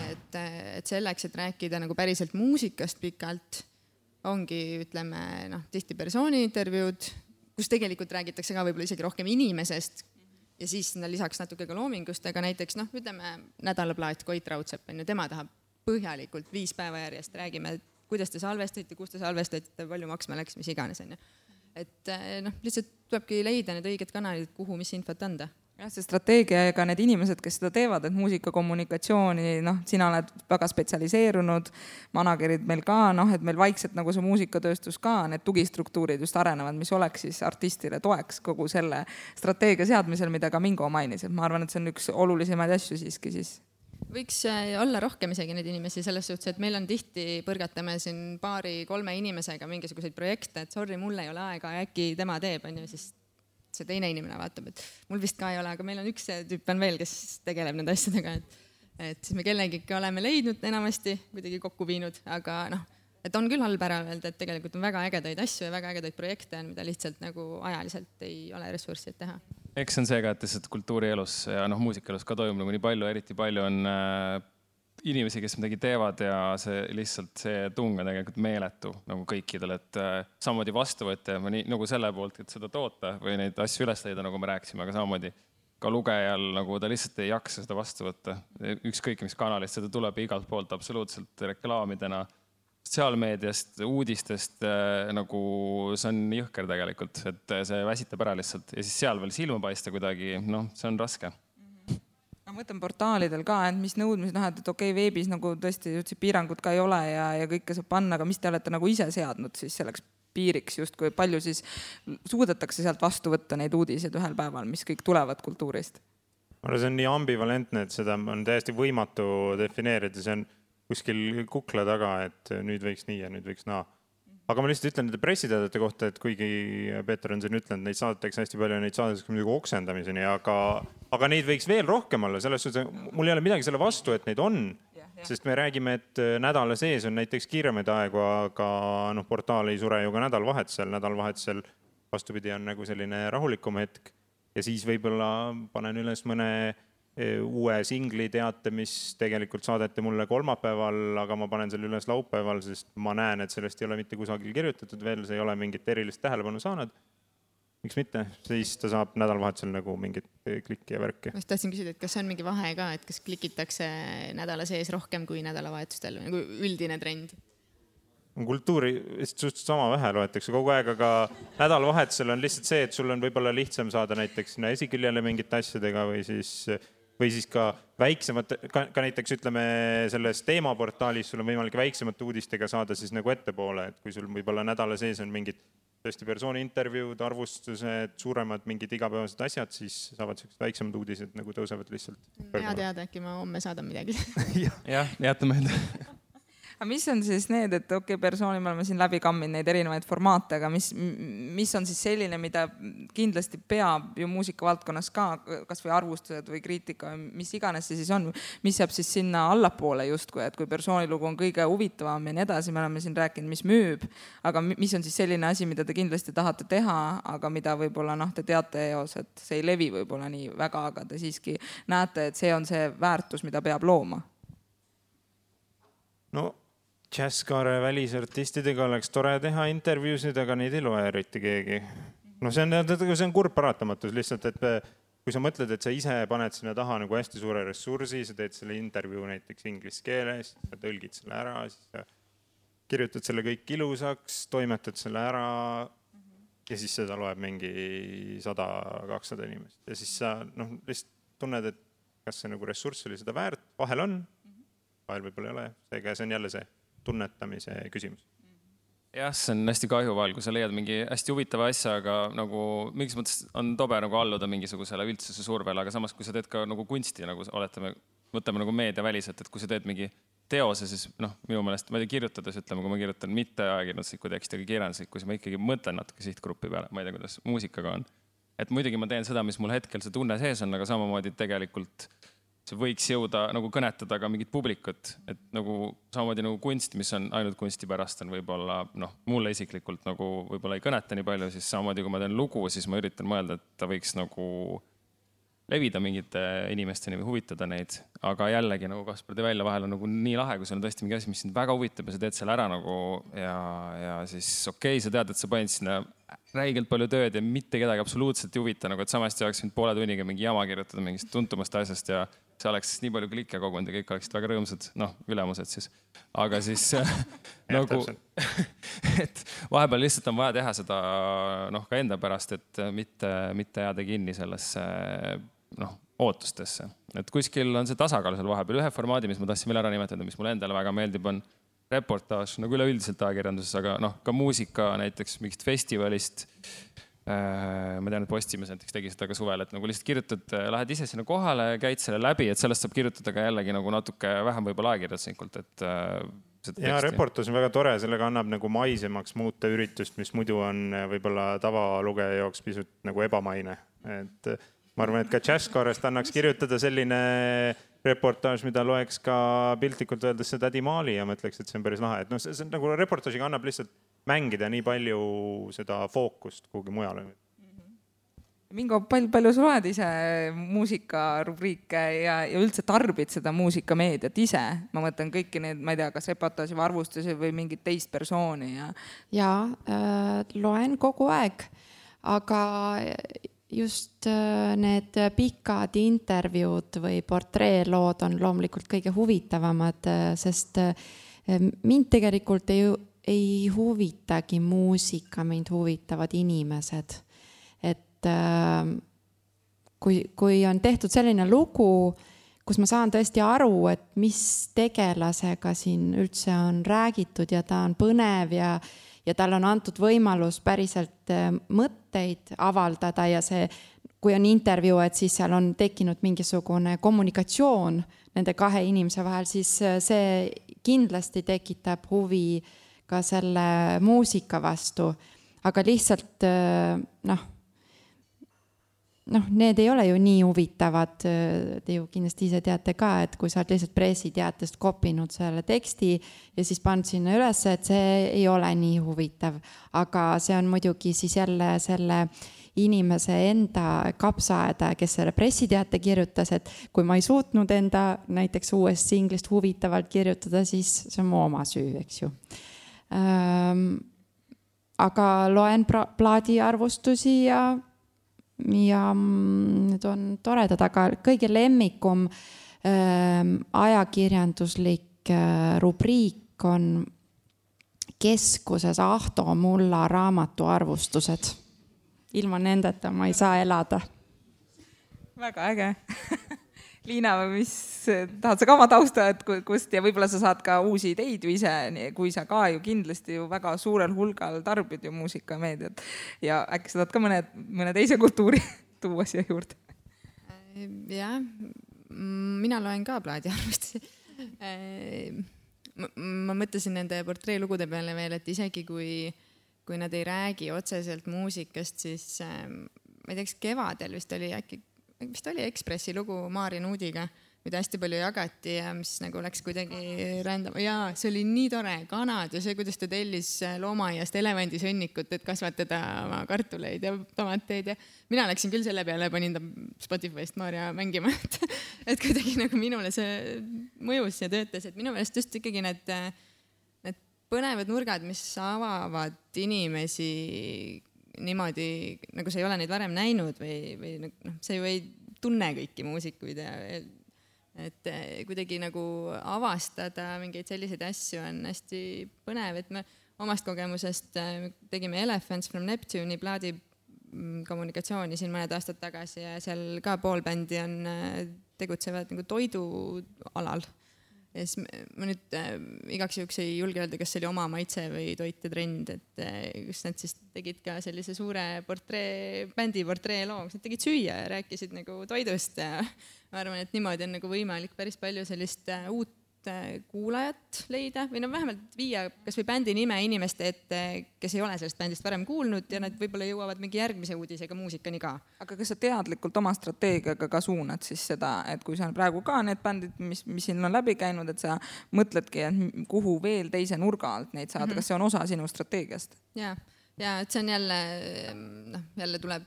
D: Et selleks, et rääkida nagu päriselt muusikast pikalt, ongi, ütleme, tihti persooni intervjuud, kus tegelikult räägitakse ka võib-olla isegi rohkem inimesest ja siis lisaks natuke ka loomingust, aga näiteks, ütleme, nädalaplaat Koit Raudsepp, tema tahab põhjalikult 5 päeva järjest, räägime, kuidas te salvestate, kus te salvestate, palju maksma läks, mis iganes. Et lihtsalt tulebki leida need õiged kanalid, kuhu mis infot anda.
A: Jah, see strateegia ja ka need inimesed, kes seda teevad, et muusikakommunikatsiooni, sina oled väga spetsialiseerunud, managerid meil ka, et meil vaikselt nagu see muusikatööstus ka, need tugistruktuurid just arenevad, mis oleks siis artistile toeks kogu selle strateegia seadmisel, mida ka Mingo mainis, et ma arvan, et see on üks olulisemaid asju siiski siis.
D: Võiks olla rohkem isegi neid inimesi selles suhtes, et meil on tihti, põrgatame siin 2-3 inimesega mingisuguseid projekte, et sorry, mul ei ole aega ja äkki tema teeb, siis see teine inimene vaatab, et mul vist ka ei ole, aga meil on üks tüüp on veel, kes tegeleb nende asjadega, et siis me kellegi oleme leidnud enamasti, kuidagi kokku viinud, aga et on küll halb ära öelda, et tegelikult on väga ägedaid asju ja väga ägedaid projekte, mida lihtsalt nagu ajaliselt ei ole ressurssi, et teha.
B: Eks on see ka, et lihtsalt kultuurielus ja muusikaelus ka toimub nagu nii palju, eriti palju on inimesi, kes midagi teevad ja see lihtsalt see tung on tegelikult meeletu nagu kõikidel, et samamoodi vastuvõtja nagu selle poolt, et seda toota või neid asju üles leida, nagu me rääkisime, aga samamoodi ka lugejal nagu ta lihtsalt ei jaksa seda vastu võtta. Ükskõik mis kanalist seda tuleb igalt poolt absoluutselt reklaamidena, sotsiaalmeediast, uudistest, nagu see on jõhker tegelikult, et see väsitab ära lihtsalt ja siis seal veel silma paista kuidagi, see on raske.
A: Ma mõtlen portaalidel ka, et mis nõudmised, et okei, veebis nagu tõesti piirangud ka ei ole ja kõike saab panna, aga mis te olete nagu ise seadnud siis selleks piiriks just, kui palju siis suudetakse sealt vastu võtta neid uudiseid ühel päeval, mis kõik tulevad kultuurist?
C: See on nii ambivalentne, et seda on täiesti võimatu defineerida, see on kuskil kukla taga, et nüüd võiks nii ja nüüd võiks naa. Aga ma lihtsalt ütlen nende pressiteadete kohta, et kuigi Peeter on siin ütlenud, neid saadetakse hästi palju ja neid saadetakse muidugi oksendamiseni, aga neid võiks veel rohkem olla. Selles suhtes, mul ei ole midagi selle vastu, et neid on, sest me räägime, et nädala sees on näiteks kiiremaid aegu, aga portaal ei sure ju ka nädalvahetusel vastupidi on nagu selline rahulikum hetk ja siis võib-olla panen üles mõne uue singli teate, mis tegelikult saadeti mulle kolmapäeval, aga ma panen selle üles laupäeval, sest ma näen, et sellest ei ole mitte kusagil kirjutatud veel, see ei ole mingit erilist tähelepanu saanud. Miks mitte? Siis ta saab nädalavahetusel nagu mingit klikki ja värki.
D: Ma tahtsin küsida, et kas see on mingi vahe ka, et kas klikitakse nädala sees rohkem kui nädalavahetustel, nagu üldine trend?
C: Kultuuri suhteliselt sama vähe loetakse kogu aeg, aga nädalavahetusel on lihtsalt see, et sul on võib-olla lihtsam saada näiteks sinna esiküljele mingite asjadega või siis ka väiksemad, ka näiteks ütleme selles teemaportaalis sul on võimalik väiksemate uudistega saada siis nagu ettepoole, et kui sul võib-olla nädala sees on mingid tõesti persooni intervjuud, arvustused, suuremad mingid igapäevased asjad, siis saavad sellised väiksemad uudised nagu tõusevad lihtsalt.
D: Hea teada, äkki ma homme saadan midagi.
B: Jah, jätame enda.
A: Aga mis on siis need, et persooni me oleme siin läbi kamminud neid erinevaid formaate, aga mis on siis selline, mida kindlasti peab ju muusikavaldkonnas ka, kas või arvustused või kriitika, mis iganes see siis on, mis jääb siis sinna allapoole justkui, et kui persoonilugu on kõige huvitavam ja nii edasi, me oleme siin rääkinud, mis müüb, aga mis on siis selline asi, mida te kindlasti tahate teha, aga mida võib-olla te teate eos, et see ei levi võib-olla nii väga, aga te siiski näete, et see on see väärtus, mida peab looma?
C: No Jazzkaare välisartistidega oleks tore teha intervjuusid, aga neid ei loe eriti keegi. See on kurb paratamatus lihtsalt, et kui sa mõtled, et sa ise paned sinna taha nagu hästi suure ressursi, sa teed selle intervjuu näiteks inglise keeles, sa tõlgid selle ära, siis sa kirjutad selle kõik ilusaks, toimetad selle ära ja siis seda loeb mingi 100-200 inimest ja siis sa lihtsalt tunned, et kas see nagu ressurss oli seda väärt, vahel on, vahel võib-olla ei ole, seega see on jälle see tunnetamise küsimus.
B: Jah, see on hästi kahju vahel, kui sa leiad mingi hästi huvitava asja, aga nagu mingis mõttes on tobe nagu alluda mingisugusele üldsuse survele, aga samas kui sa teed ka nagu kunsti, nagu võtame nagu meediaväliselt, et kui sa teed mingi teose, siis minu meelest, ma ei tea, kirjutades ütleme, kui ma kirjutan mitte ajakirjanduslikku teksti, aga kirjanduslikku, siis ma ikkagi mõtlen natuke sihtgrupi peale, ma ei tea, kuidas muusikaga on. Et muidugi ma teen seda, mis mul hetkel see tunne sees on, aga samamoodi tegelikult see võiks jõuda nagu kõnetada ka mingit publikut, et nagu samamoodi nagu kunst, mis on ainult kunsti pärast on võib-olla, mulle isiklikult nagu võib-olla ei kõneta nii palju, siis samamoodi kui ma teen lugu, siis ma üritan mõelda, et ta võiks nagu levida mingite inimesteni või huvitada neid, aga jällegi nagu Kaspar tõi välja, vahel on nagu nii lahe, kui sul on tõesti mingi asi, mis sind väga huvitab ja sa teed selle ära nagu ja siis okei, sa tead, et sa panid sinna räigelt palju tööd ja mitte kedagi absoluutselt ei huvita, nagu et samasti oleks mind poole tunniga mingi jama kirjutada mingist tuntumast asjast ja see oleks nii palju klikke kogunud ja kõik oleksid väga rõõmsad, ülemused siis. Aga siis nagu, et vahepeal lihtsalt on vaja teha seda ka enda pärast, et mitte jääda kinni sellesse ootustesse. Et kuskil on see tasakaal seal vahepeal. Ühe formaadi, mis ma tahtsin veel ära nimetada, mis mulle endale väga meeldib, on reportaaž, nagu üleüldiselt ajakirjanduses, aga ka muusika näiteks mingist festivalist. Ma tean, et Postimees näiteks tegi seda ka suvel, et nagu lihtsalt kirjutad, lähed ise sinna kohale, käid selle läbi, et sellest saab kirjutada ka jällegi nagu natuke vähem võib-olla ajakirjanduslikult, et
C: ja reportaas on väga tore, sellega annab nagu maisemaks muuta üritust, mis muidu on võib-olla tavalugeja jaoks pisut nagu ebamaine. Et ma arvan, et ka Jazzkaarest annaks kirjutada selline reportaaž, mida loeks ka piltlikult öeldes see Tädi Maali ja mõtleks, et see on päris lahe. Et see on nagu reportaažiga annab lihtsalt mängida nii palju seda fookust kuhugi mujale.
A: Mingo, palju sa loed ise muusikarubriike ja üldse tarbid seda muusikameediat ise? Ma mõtlen kõiki need, ma ei tea, kas reportaaži või arvustusi või mingit teist persooni.
E: Ja, loen kogu aeg, aga just need pikad intervjuud või portreelood on loomulikult kõige huvitavamad, sest mind tegelikult ei huvitagi muusika, mind huvitavad inimesed. Et kui on tehtud selline lugu, kus ma saan tõesti aru, et mis tegelasega siin üldse on räägitud ja ta on põnev ja tal on antud võimalus päriselt mõtteid avaldada ja see, kui on intervjuu, et siis seal on tekkinud mingisugune kommunikatsioon nende kahe inimese vahel, siis see kindlasti tekitab huvi ka selle muusika vastu, aga lihtsalt need ei ole ju nii huvitavad, te ju kindlasti ise teate ka, et kui sa oled lihtsalt pressiteatest kopinud selle teksti ja siis pannud sinna üles, et see ei ole nii huvitav, aga see on muidugi siis jälle selle inimese enda kapsaaeda, kes selle pressiteate kirjutas, et kui ma ei suutnud enda näiteks uuest singlist huvitavalt kirjutada, siis see on mu oma süü, eks ju. Aga loen plaadiarvustusi ja need on toredad, aga kõige lemmikum ajakirjanduslik rubriik on Keskuses Ahto Mulla raamatuarvustused. Ilma nendeta ma ei saa elada.
A: Väga äge. Liina, mis tahad sa ka oma tausta, et kust ja võib-olla sa saad ka uusi ideid ju ise, kui sa ka ju kindlasti ju väga suurel hulgal tarbid ju muusikameediat ja äkki sa tahad ka mõne teise kultuuri tuua siia juurde?
D: Jah, mina loen ka plaadiarvustusi. Ma mõtlesin nende portreelugude peale veel, et isegi kui nad ei räägi otseselt muusikast, siis ma ei teaks, kevadel vist oli Ekspressi lugu Maarja Nuudiga, mida hästi palju jagati ja mis nagu läks kuidagi rändama. Jaa, see oli nii tore, kanad ja see, kuidas ta tellis loomaaiast elevandisõnnikut, et kasvatada oma kartuleid ja tomateid. Ja mina läksin küll selle peale, panin ta Spotify'st Maarja mängima, et kuidagi nagu minule see mõjus ja töötas, et minu meelest just ikkagi need põnevad nurgad, mis avavad inimesi niimoodi, nagu sa ei ole neid varem näinud või sa ju ei tunne kõiki muusikuid et kuidagi nagu avastada mingeid selliseid asju on hästi põnev, et me omast kogemusest tegime Elephants from Neptune'i plaadi kommunikatsiooni siin mõned aastad tagasi ja seal ka pool bändi on tegutsevad nagu toidualal. Ja siis ma nüüd igaks juhuks ei julge öelda, kas see oli oma maitse või toite trend, et kus nad siis tegid ka sellise suure bändi portree loo, kus nad tegid süüa ja rääkisid nagu toidust ja ma arvan, et niimoodi on nagu võimalik päris palju sellist uut kuulajat leida või vähemalt viia kas või bändi nime inimeste ette, kes ei ole sellest bändist varem kuulnud ja nad võib-olla jõuavad mingi järgmise uudisega muusikani ka.
A: Aga kas sa teadlikult oma strateegiaga ka suunad siis seda, et kui sa praegu ka need bändid, mis siin on läbi käinud, et sa mõtledki, et kuhu veel teise nurga alt neid saada, kas see on osa sinu strateegiast?
D: Ja et see on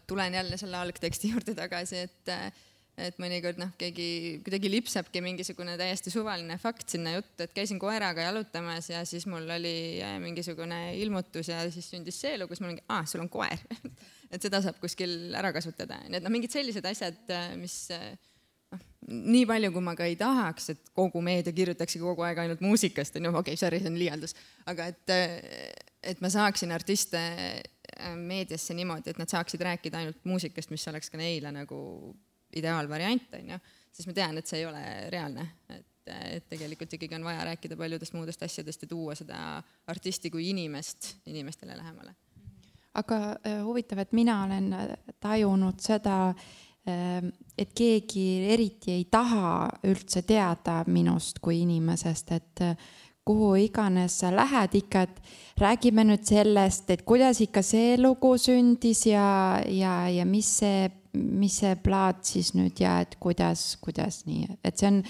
D: tulen jälle selle algteksti juurde tagasi, et mõnikord keegi kuidagi lipsabki mingisugune täiesti suvaline fakt sinna juttu, et käisin koeraga jalutamas ja siis mul oli mingisugune ilmutus ja siis sündis see elu, kus mul ongi, sul on koer. Et seda saab kuskil ära kasutada. Need mingid sellised asjad, mis nii palju, kui ma ka ei tahaks, et kogu meedia kirjutaksi kogu aeg ainult muusikast, sorry, see on liialdus, aga et ma saaksin artiste meediasse niimoodi, et nad saaksid rääkida ainult muusikast, mis oleks ka neile nagu ideaalvariant, siis ma tean, et see ei ole reaalne, et tegelikult ikkagi on vaja rääkida paljudest muudest asjadest ja tuua seda artisti kui inimestele lähemale.
E: Aga huvitav, et mina olen tajunud seda, et keegi eriti ei taha üldse teada minust kui inimesest, et kuhu iganes sa lähed ikka, et räägime nüüd sellest, et kuidas ikka see lugu sündis ja mis see plaat siis nüüd ja et kuidas nii, et see on,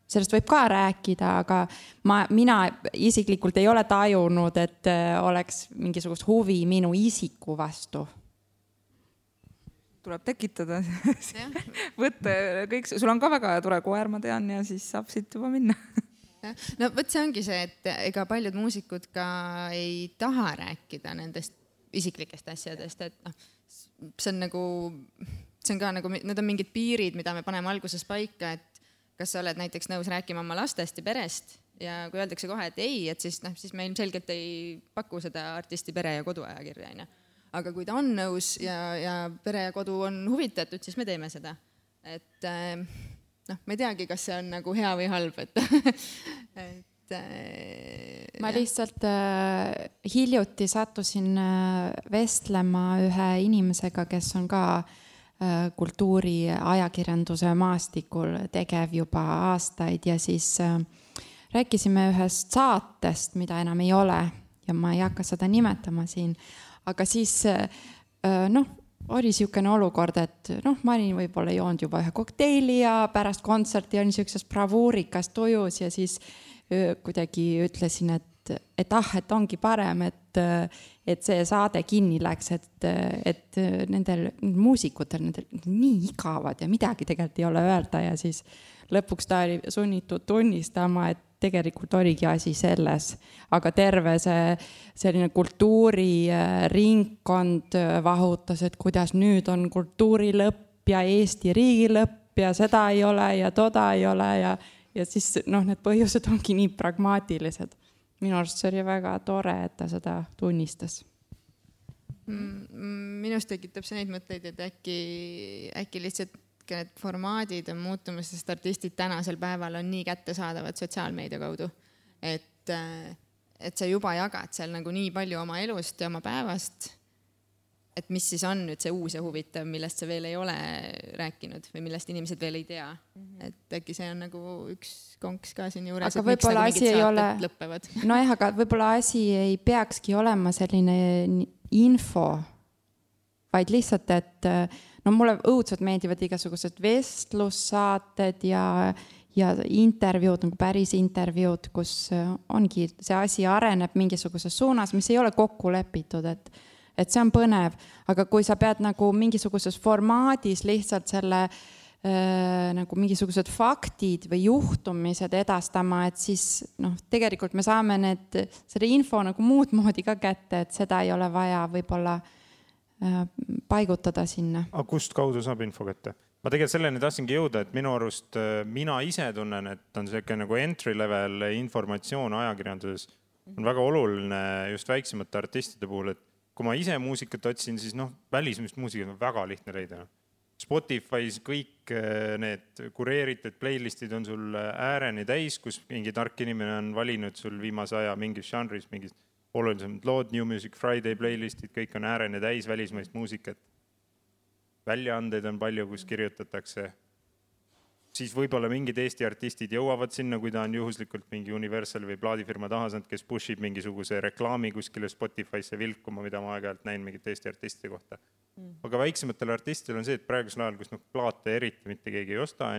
E: sellest võib ka rääkida, aga mina isiklikult ei ole tajunud, et oleks mingisugust huvi minu isiku vastu.
A: Tuleb tekitada, võtta kõik, sul on ka väga tore koer, ma tean, ja siis saab siit juba minna.
D: No võt see ongi see, et ega paljud muusikud ka ei taha rääkida nendest isiklikest asjadest, et see on ka nagu, need on mingid piirid, mida me paneme alguses paika, et kas sa oled näiteks nõus rääkima oma lastest ja perest ja kui öeldakse kohe, et ei, et siis me ilmselgelt ei paku seda artisti pere- ja koduajakirja. Aga kui ta on nõus ja pere ja kodu on huvitatud, siis me teeme seda. Et ma ei teagi, kas see on nagu hea või halb,
E: ma lihtsalt hiljuti sattusin vestlema ühe inimesega, kes on ka kultuuri ajakirjanduse maastikul tegev juba aastaid ja siis rääkisime ühest saatest, mida enam ei ole ja ma ei hakka seda nimetama siin, aga siis oli niisugune olukord, et ma olin võib-olla joonud juba ühe kokteili ja pärast kontserti oli niisuguses bravuurikas tujus ja siis kuidagi ütlesin, et ongi parem, et see saade kinni läks, et nendel muusikutel nendel nii igavad ja midagi tegelikult ei ole öelda ja siis lõpuks ta oli sunnitud tunnistama, et tegelikult oligi asi selles, aga terve see selline kultuuriringkond vahutas, et kuidas nüüd on kultuurilõpp ja Eesti riigilõpp ja seda ei ole ja toda ei ole ja siis need põhjused ongi nii pragmaatilised. Minu arust see oli väga tore, et ta seda tunnistas.
D: Minust tekitab see neid mõtteid, et äkki lihtsalt need formaadid on muutumas, sest artistid tänasel päeval on nii kättesaadavad sotsiaalmeedia kaudu, et sa juba jagad seal nagu nii palju oma elust ja oma päevast, et mis siis on nüüd see uus ja huvitav, millest sa veel ei ole rääkinud või millest inimesed veel ei tea. Et äkki see on nagu üks konks ka siin juures,
E: aga et miks nagu mingid saated lõppevad. Nojah, aga võib-olla asi ei peakski olema selline info, vaid lihtsalt, et mulle õudselt meeldivad igasugused vestlussaated ja intervjuud, nagu päris intervjuud, kus ongi see asi areneb mingisuguses suunas, mis ei ole kokku lepitud, et see on põnev, aga kui sa pead nagu mingisuguses formaadis lihtsalt selle nagu mingisugused faktid või juhtumised edastama, et siis tegelikult me saame selle info nagu muud moodi ka kätte, et seda ei ole vaja võib-olla paigutada sinna.
C: Aga kust kaudu saab info kätte? ma tegelikult selleni tahtsingi jõuda, et minu arust mina ise tunnen, et on selline nagu entry level informatsioon ajakirjanduses on väga oluline just väiksemate artistide puhul, et kui ma ise muusikat otsin, siis välismist muusikat on väga lihtne leida. Spotify's kõik need kureeritud playlistid on sul ääreni täis, kus mingi tark inimene on valinud sul viimase aja mingis žanris, mingis olulisemad lood, New Music Friday playlistid, kõik on ääreni täis välismaist muusikat. Väljaandeid on palju, kus kirjutatakse. Siis võib-olla mingid Eesti artistid jõuavad sinna, kui ta on juhuslikult mingi Universal või plaadifirma tahasand, kes pushib mingisuguse reklaami kuskile Spotify'sse vilkuma, mida ma aeg-ajalt näin mingit Eesti artistide kohta. Aga väiksematel artistidel on see, et praegusel ajal, kus plaate eriti mitte keegi ei osta,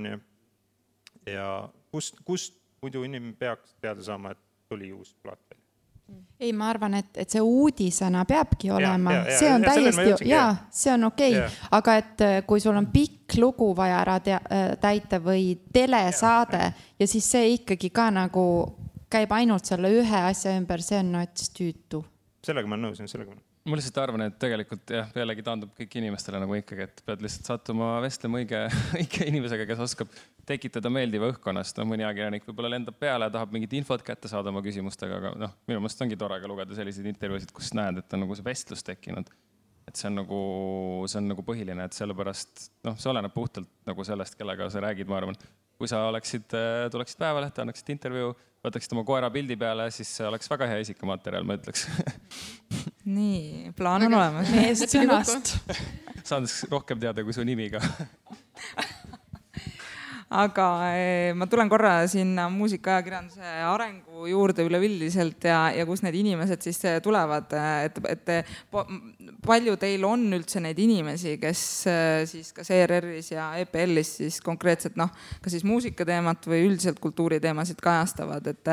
C: ja kust muidu inimene peaks teada saama, et tuli uus plaat veel?
E: Ei, ma arvan, et see uudisena peabki olema. See on täiesti, see on okei. Aga et kui sul on pikk lugu vaja ära täita või telesaade ja siis see ikkagi ka nagu käib ainult selle ühe asja ümber, see on tüütu.
C: Sellega ma nõusin, sellega ma nõusin.
B: Ma lihtsalt arvan, et tegelikult pealegi taandub kõik inimestele nagu ikkagi, et pead lihtsalt sattuma vestlema õige inimesega, kes oskab tekitada meeldiva õhkkonnast. Mõni ajakirjanik võib-olla lendab peale ja tahab mingit infot kätte saada oma küsimustega, aga minu meelest ongi tore ka lugeda selliseid intervjuusid, kus näed, et on nagu see vestlus tekkinud. Et see on nagu põhiline, et sellepärast, see oleneb puhtalt nagu sellest, kellega sa räägid, ma arvan. Kui sa tuleksid päevalehte, annaksid intervjuu, võtaksid oma koera pildi peale, siis see oleks väga hea isikamaterjal, ma ütleks.
A: Nii, plaan on olemas.
E: Meest sõnast.
B: Saan rohkem teada kui su nimi ka.
A: Aga ma tulen korra sinna muusikaajakirjanduse arengu juurde üleüldiselt ja kus need inimesed siis tulevad, et palju teil on üldse neid inimesi, kes siis kas ERR-is ja EPL-is siis konkreetselt ka siis muusikateemat või üldiselt kultuuriteemasid kajastavad, et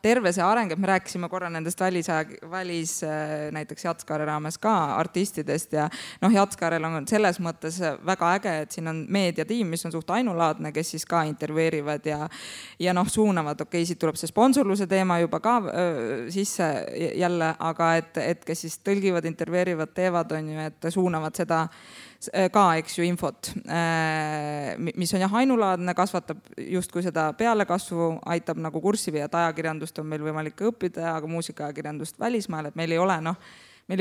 A: terve see areng, et me rääkisime korra nendest välis näiteks Jatskaare raames ka artistidest ja Jatskaarel on selles mõttes väga äge, et siin on meediatiim, mis on suht ainulaadne, kes siis ka intervjueerivad ja suunavad, siit tuleb see sponsorluse teema juba ka sisse jälle, aga et kes siis tõlgivad, intervjueerivad, teevad, et suunavad seda ka, infot, mis on ainulaadne, kasvatab justkui seda pealekasvu, aitab nagu kurssi viia, et ajakirjandust on meil võimalik õppida, aga muusikaajakirjandust välismaal, et meil ei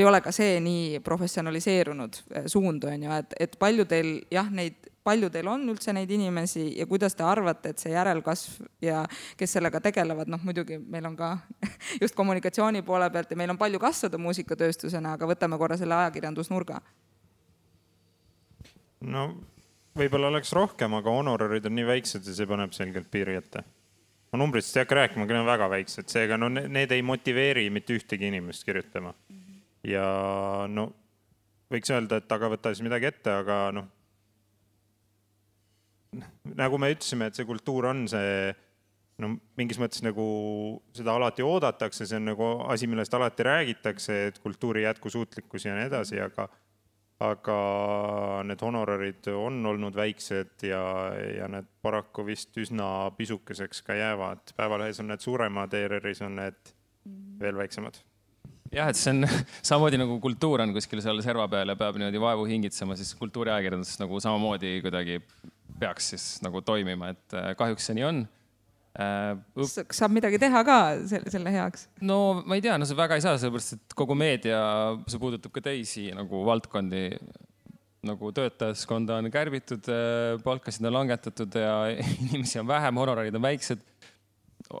A: ole ka see nii professionaliseerunud suund, et palju teil on üldse neid inimesi ja kuidas te arvate, et see järelkasv ja kes sellega tegelevad, muidugi meil on ka just kommunikatsiooni poole pealt ja meil on palju kasvada muusikatööstusena, aga võtame korra selle ajakirjandusnurga.
C: Võib-olla oleks rohkem, aga honorarid on nii väiksed ja see paneb selgelt piiri ette. Ma numbritest ei hakka rääkima, aga need on väga väiksed, seega need ei motiveeri mitte ühtegi inimest kirjutama. Ja võiks öelda, et aga võta siis midagi ette, aga nagu me ütlesime, et see kultuur on see, mingis mõttes nagu seda alati oodatakse, see on nagu asi, millest alati räägitakse, et kultuuri jätkusuutlikkus ja nii edasi, aga need honorarid on olnud väiksed ja need paraku vist üsna pisukeseks ka jäävad. Päevalehes on need suuremad, ERR-is on need veel väiksemad.
B: Jah, et see on samamoodi nagu kultuur on kuskil seal serva peal ja peab niimoodi vaevu hingitsema, siis kultuuriajakirjandus nagu samamoodi kuidagi peaks siis nagu toimima, et kahjuks see nii on.
A: Saab midagi teha ka selle heaks?
B: No ma ei tea, see väga ei saa, sellepärast, et kogu meedia, see puudutab ka teisi nagu valdkondi, nagu töötajaskonda on kärbitud, palkasid on langetatud ja inimesi on vähem, honorarid on väiksed.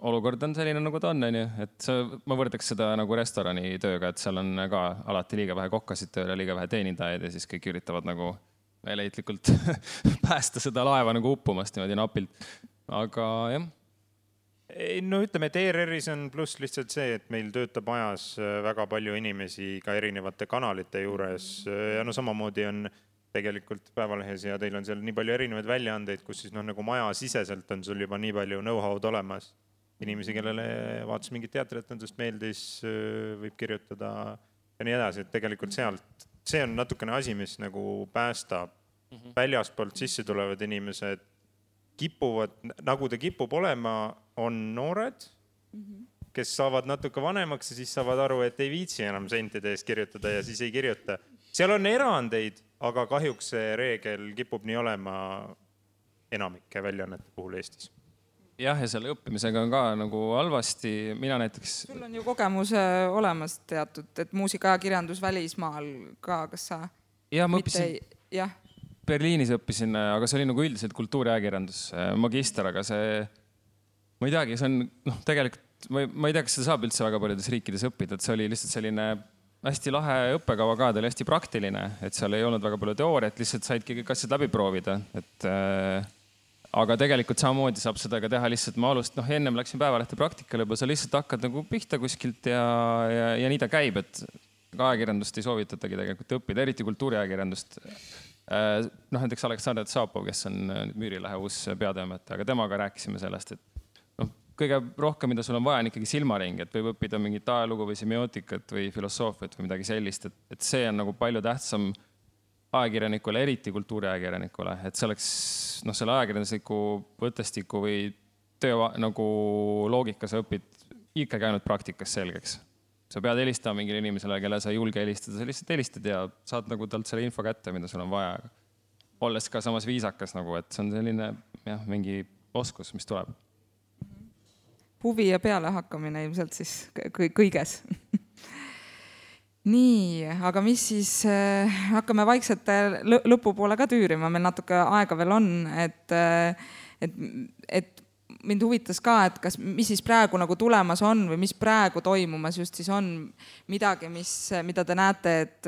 B: Olukord on selline, nagu ta on, et ma võrdaks seda nagu restorani tööga, et seal on ka alati liiga vähe kokkasid tööle, liiga vähe teenindajaid ja siis kõik üritavad nagu meeleheitlikult päästa seda laeva nagu uppumast niimoodi napilt. Aga jah.
C: Ütleme, et ERR-is on pluss lihtsalt see, et meil töötab ajas väga palju inimesi ka erinevate kanalite juures ja samamoodi on tegelikult Päevalehes ja teil on seal nii palju erinevaid väljaandeid, kus siis nagu maja siseselt on sul juba nii palju know-how'd olemas. Inimesi, kellele vaatas mingit teatritendust meeldis, võib kirjutada ja nii edasi, et tegelikult sealt, see on natukene asi, mis nagu päästab väljaspoolt sisse tulevad inimesed kipuvad, nagu ta kipub olema, on noored, kes saavad natuke vanemaks ja siis saavad aru, et ei viitsi enam sentide eest kirjutada ja siis ei kirjuta. Seal on erandeid, aga kahjuks see reegel kipub nii olema enamike väljaannete puhul Eestis.
B: Jah, ja selle õppimisega on ka nagu halvasti. Mina näiteks...
A: Sul on ju kogemus olemas teatud, et muusikaajakirjandus välismaal ka, kas sa...
B: Ja, ma õppisin...
A: Jah.
B: Berliinis õppisin, aga see oli nagu üldiselt kultuuriajakirjandus magister, aga see, ma ei teagi, see on tegelikult, ma ei tea, kas seda saab üldse väga paljudes riikides õppida, et see oli lihtsalt selline hästi lahe õppekava ka, ta oli hästi praktiline, et seal ei olnud väga palju teooriat, lihtsalt saidki kõik asjad läbi proovida, et aga tegelikult samamoodi saab seda ka teha lihtsalt, ma ennem läksin päevalehte praktikale, juba sa lihtsalt hakkad nagu pihta kuskilt ja nii ta käib, et ajakirjandust ei soovitatagi tegelikult õppida, eriti kultuuriajakirjandust. Näiteks Aleksandr Tsapov, kes on Müürilehe uus peatoimetaja, aga temaga rääkisime sellest, et kõige rohkem, mida sul on vaja, on ikkagi silmaring, et võib õppida mingit ajalugu või semiootikat või filosoofiat või midagi sellist, et see on nagu palju tähtsam ajakirjanikule, eriti kultuuriajakirjanikule, et see oleks selle ajakirjandusliku võttestiku või töö nagu loogika sa õpid ikkagi ainult praktikas selgeks. Sa pead helistama mingile inimesele, kelle sa ei julge helistada, sa lihtsalt helistad ja saad nagu talt selle info kätte, mida sul on vaja. Olles ka samas viisakas, nagu, et see on selline mingi oskus, mis tuleb.
A: Huvi ja peale hakkamine ilmselt siis kõiges. Nii, aga mis siis, hakkame vaikselt lõpupoole ka tüürima, meil natuke aega veel on, et mind huvitas ka, et mis siis praegu nagu tulemas on või mis praegu toimumas just siis on midagi, mida te näete, et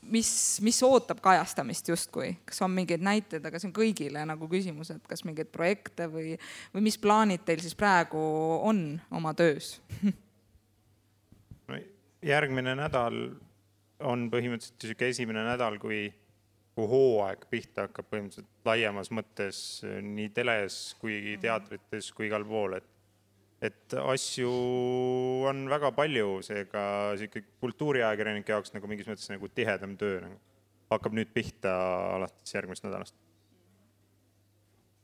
A: mis ootab kajastamist justkui. Kas on mingeid näiteid, aga see on kõigile nagu küsimus, et kas mingeid projekte või mis plaanid teil siis praegu on oma töös?
C: Järgmine nädal on põhimõtteliselt esimene nädal, kui hooaeg pihta hakkab põhimõtteliselt laiemas mõttes nii teles kui teatrites kui igal pool, et asju on väga palju, seega kultuuriajakirjanike jaoks nagu mingis mõttes nagu tihedam töö hakkab nüüd pihta alates järgmist nädalast.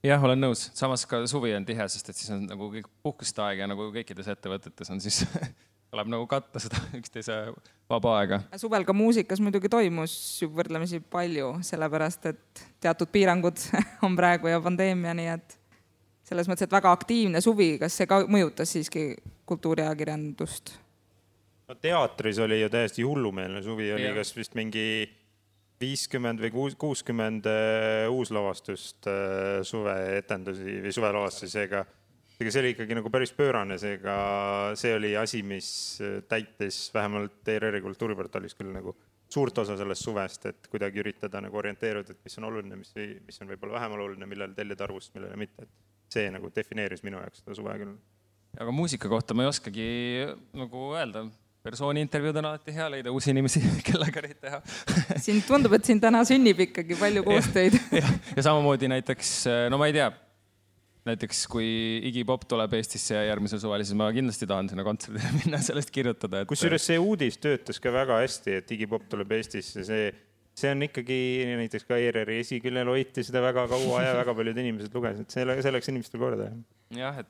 B: Jah, olen nõus. Samas ka suvi on tihe, sest et siis on nagu kõik puhkuste aeg ja nagu kõikides ettevõtetes on siis tuleb nagu katta seda üksteise vaba aega.
A: Suvel ka muusikas muidugi toimus ju võrdlemisi palju, sellepärast et teatud piirangud on praegu ja pandeemia, nii et selles mõttes, et väga aktiivne suvi, kas see ka mõjutas siiski kultuuriajakirjandust?
C: No teatris oli ju täiesti hullumeelne suvi, oli kas vist mingi 50 või 60 uuslavastust suveetendusi või suvelavastusi, seega see oli ikkagi nagu päris pöörane, seega see oli asi, mis täitis vähemalt ERR-i kultuuriportaalis küll nagu suurt osa sellest suvest, et kuidagi üritada nagu orienteeruda, et mis on oluline, mis on võib-olla vähem oluline, millel tellida arvust, millele mitte. Et see nagu defineeris minu jaoks seda suve küll.
B: Aga muusika kohta ma ei oskagi nagu öelda. Persooni intervjuud on alati hea leida uusi inimesi, kellega neid teha.
A: Siin tundub, et siin täna sünnib ikkagi palju koostöid.
B: Ja samamoodi näiteks, no ma ei tea, näiteks kui Iggy Pop tuleb Eestisse ja järgmisel suvel, siis ma kindlasti tahan sinna kontserdile minna sellest kirjutada.
C: Kusjuures see uudis töötas ka väga hästi, et Iggy Pop tuleb Eestisse. See on ikkagi näiteks ka ERR-i esiküljel hoiti seda väga kaua ja väga paljud inimesed lugesid. See läks inimestel korda.
B: Jah,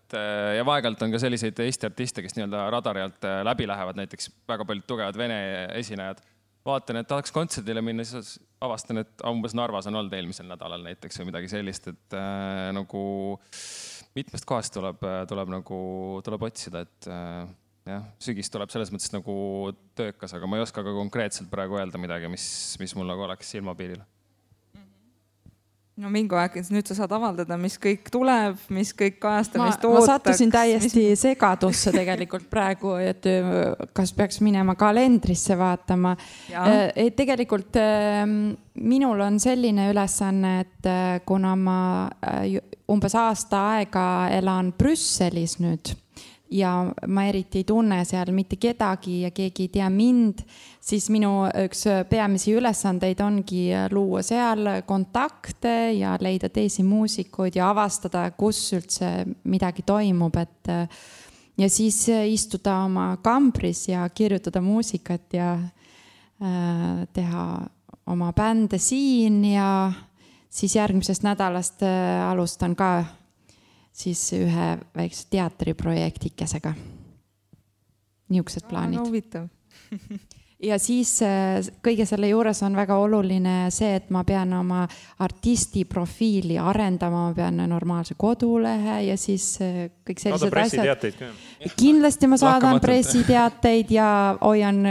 B: ja vaegalt on ka selliseid Eesti artiste, kes nii-öelda radari alt läbi lähevad, näiteks väga paljud tugevad vene esinejad. Vaatan, et tahaks kontserdile minna, siis avastan, et umbes Narvas on olnud eelmisel nädalal näiteks või midagi sellist, et nagu mitmest kohast tuleb otsida, et jah, sügis tuleb selles mõttes nagu töökas, aga ma ei oska ka konkreetselt praegu öelda midagi, mis mul nagu oleks silmapiiril.
A: No Mingo Äkins, nüüd sa saad avaldada, mis kõik tuleb, mis kõik kajastamist ootaks.
E: Ma sattusin täiesti segadusse tegelikult praegu, et kas peaks minema kalendrisse vaatama. Tegelikult minul on selline ülesanne, et kuna ma umbes aasta aega elan Brüsselis nüüd ja ma eriti ei tunne seal mitte kedagi ja keegi ei tea mind, siis minu üks peamisi ülesandeid ongi luua seal kontakte ja leida teisi muusikuid ja avastada, kus üldse midagi toimub, ja siis istuda oma kambris ja kirjutada muusikat ja teha oma bände siin ja siis järgmisest nädalast alustan ka siis ühe väikse teatriprojektikesega. Niisugused plaanid.
A: Huvitav.
E: ja siis kõige selle juures on väga oluline see, et ma pean oma artisti profiili arendama, ma pean normaalse kodulehe ja siis kõik sellised asjad. Kindlasti ma saadan pressiteateid ja hoian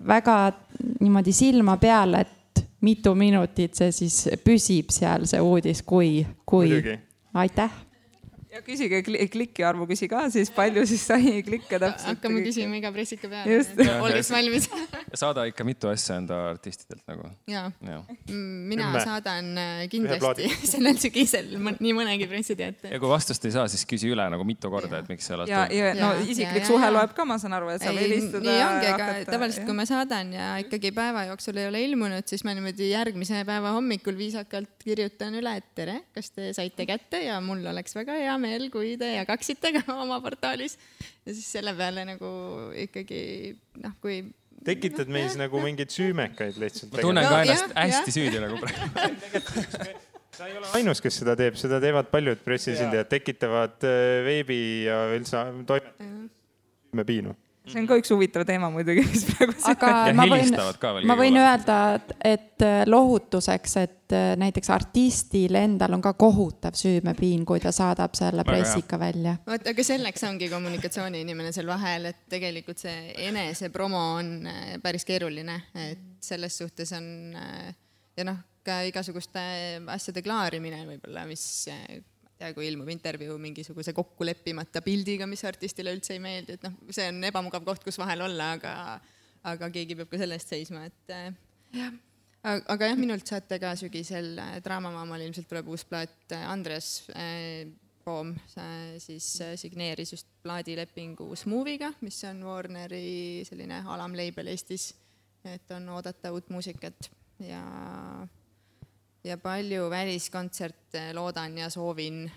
E: väga niimoodi silma peal, et mitu minutit see siis püsib seal see uudis, kui. Aitäh.
A: Ja küsige klikki arvu, küsi ka siis palju siis sai klikke täpselt.
D: Hakkame küsima iga pressika peale, olles valmis.
B: Saada ikka mitu asja enda artistidelt nagu.
D: Jaa. Mina saadan kindlasti sellel sügisel nii mõnegi pressiteate.
B: Ja kui vastust ei saa, siis küsi üle nagu mitu korda, et miks see alati.
A: Ja no isiklik suhe loeb ka, ma saan aru, et saab helistada.
D: Nii ongi, aga tavaliselt kui ma saadan ja ikkagi päeva jooksul ei ole ilmunud, siis ma niimoodi järgmise päeva hommikul viisakalt kirjutan üle, et tere, kas te saite kätte ja mul oleks väga hea meel, kui te jagaksite ka oma portaalis. Ja siis selle peale nagu ikkagi, kui...
C: Tekitad meis nagu mingeid süümekaid lihtsalt.
B: Ma tunnen ka ennast hästi süüdi nagu praegu.
C: Sa ei ole ainus, kes seda teeb. Seda teevad paljud pressisildajad, tekitavad veebi ja üldse süümepiinu.
A: See on ka üks huvitav teema muidugi, mis praegu
E: aga ma võin öelda, et lohutuseks, et näiteks artistil endal on ka kohutav süümepiin, kui ta saadab selle pressika välja.
D: Aga selleks ongi kommunikatsiooniinimene seal vahel, et tegelikult see enese promo on päris keeruline, et selles suhtes on ja ka igasuguste asjade klaarimine võib-olla, mis... Ja kui ilmub intervjuu mingisuguse kokkuleppimata pildiga, mis artistile üldse ei meeldi, et see on ebamugav koht, kus vahel olla, aga keegi peab ka selle eest seisma. Aga minult saate ka sügisel Draamamaamal ilmselt tuleb uus plaat. Andres Poom siis signeeris just plaadilepingu Smooviga, mis on Warneri selline alamleibel Eestis, et on oodata uut muusikat ja palju väliskontserte loodan ja soovin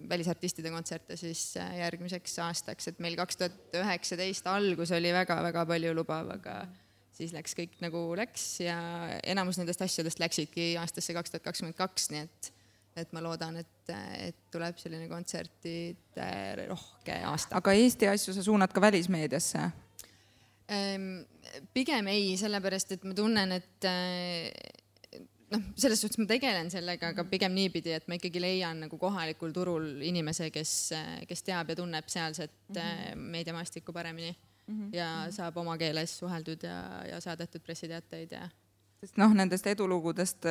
D: välisartistide kontserte siis järgmiseks aastaks, et meil 2019 algus oli väga-väga palju lubav, aga siis läks kõik nagu läks ja enamus nendest asjadest läksidki aastasse 2022, nii et ma loodan, et tuleb selline kontsertide rohke aasta.
A: Aga Eesti asju sa suunad ka välismeediasse?
D: Pigem ei, sellepärast, et ma tunnen, et selles suhtes ma tegelen sellega, aga pigem niipidi, et ma ikkagi leian nagu kohalikul turul inimese, kes teab ja tunneb sealset meediamaastikku paremini ja saab oma keeles suheldud ja saadetud pressiteateid ja...
A: Sest nendest edulugudest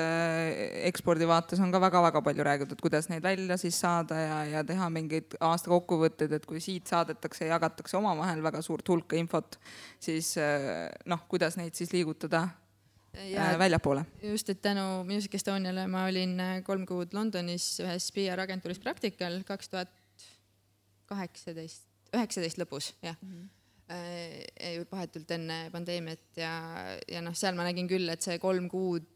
A: ekspordivaates on ka väga-väga palju räägitud, kuidas neid välja siis saada ja teha mingeid aasta kokkuvõtteid, et kui siit saadetakse ja jagatakse omavahel väga suurt hulka infot, siis kuidas neid siis liigutada väljapoole. Just, et tänu Music Estoniale ma olin 3 kuud Londonis ühes PR-agentuuris praktikal 2019 lõpus, jah. Vahetult enne pandeemiat ja seal ma nägin küll, et see 3 kuud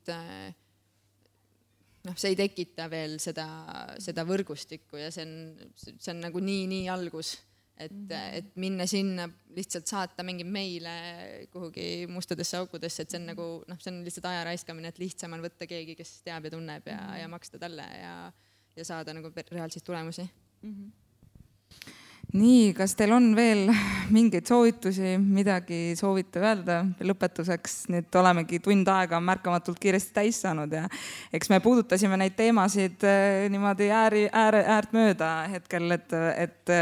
A: see ei tekita veel seda võrgustikku ja see on nagu nii algus. Et minna sinna lihtsalt saata mingi meile kuhugi mustadesse aukudesse, et see on nagu, see on lihtsalt aja raiskamine, et lihtsam on võtta keegi, kes teab ja tunneb ja maksta talle ja saada nagu reaalseid tulemusi. Nii, kas teil on veel mingeid soovitusi, midagi soovite öelda lõpetuseks? Nüüd olemegi tund aega märkamatult kiiresti täis saanud ja eks me puudutasime neid teemasid niimoodi äärt mööda hetkel,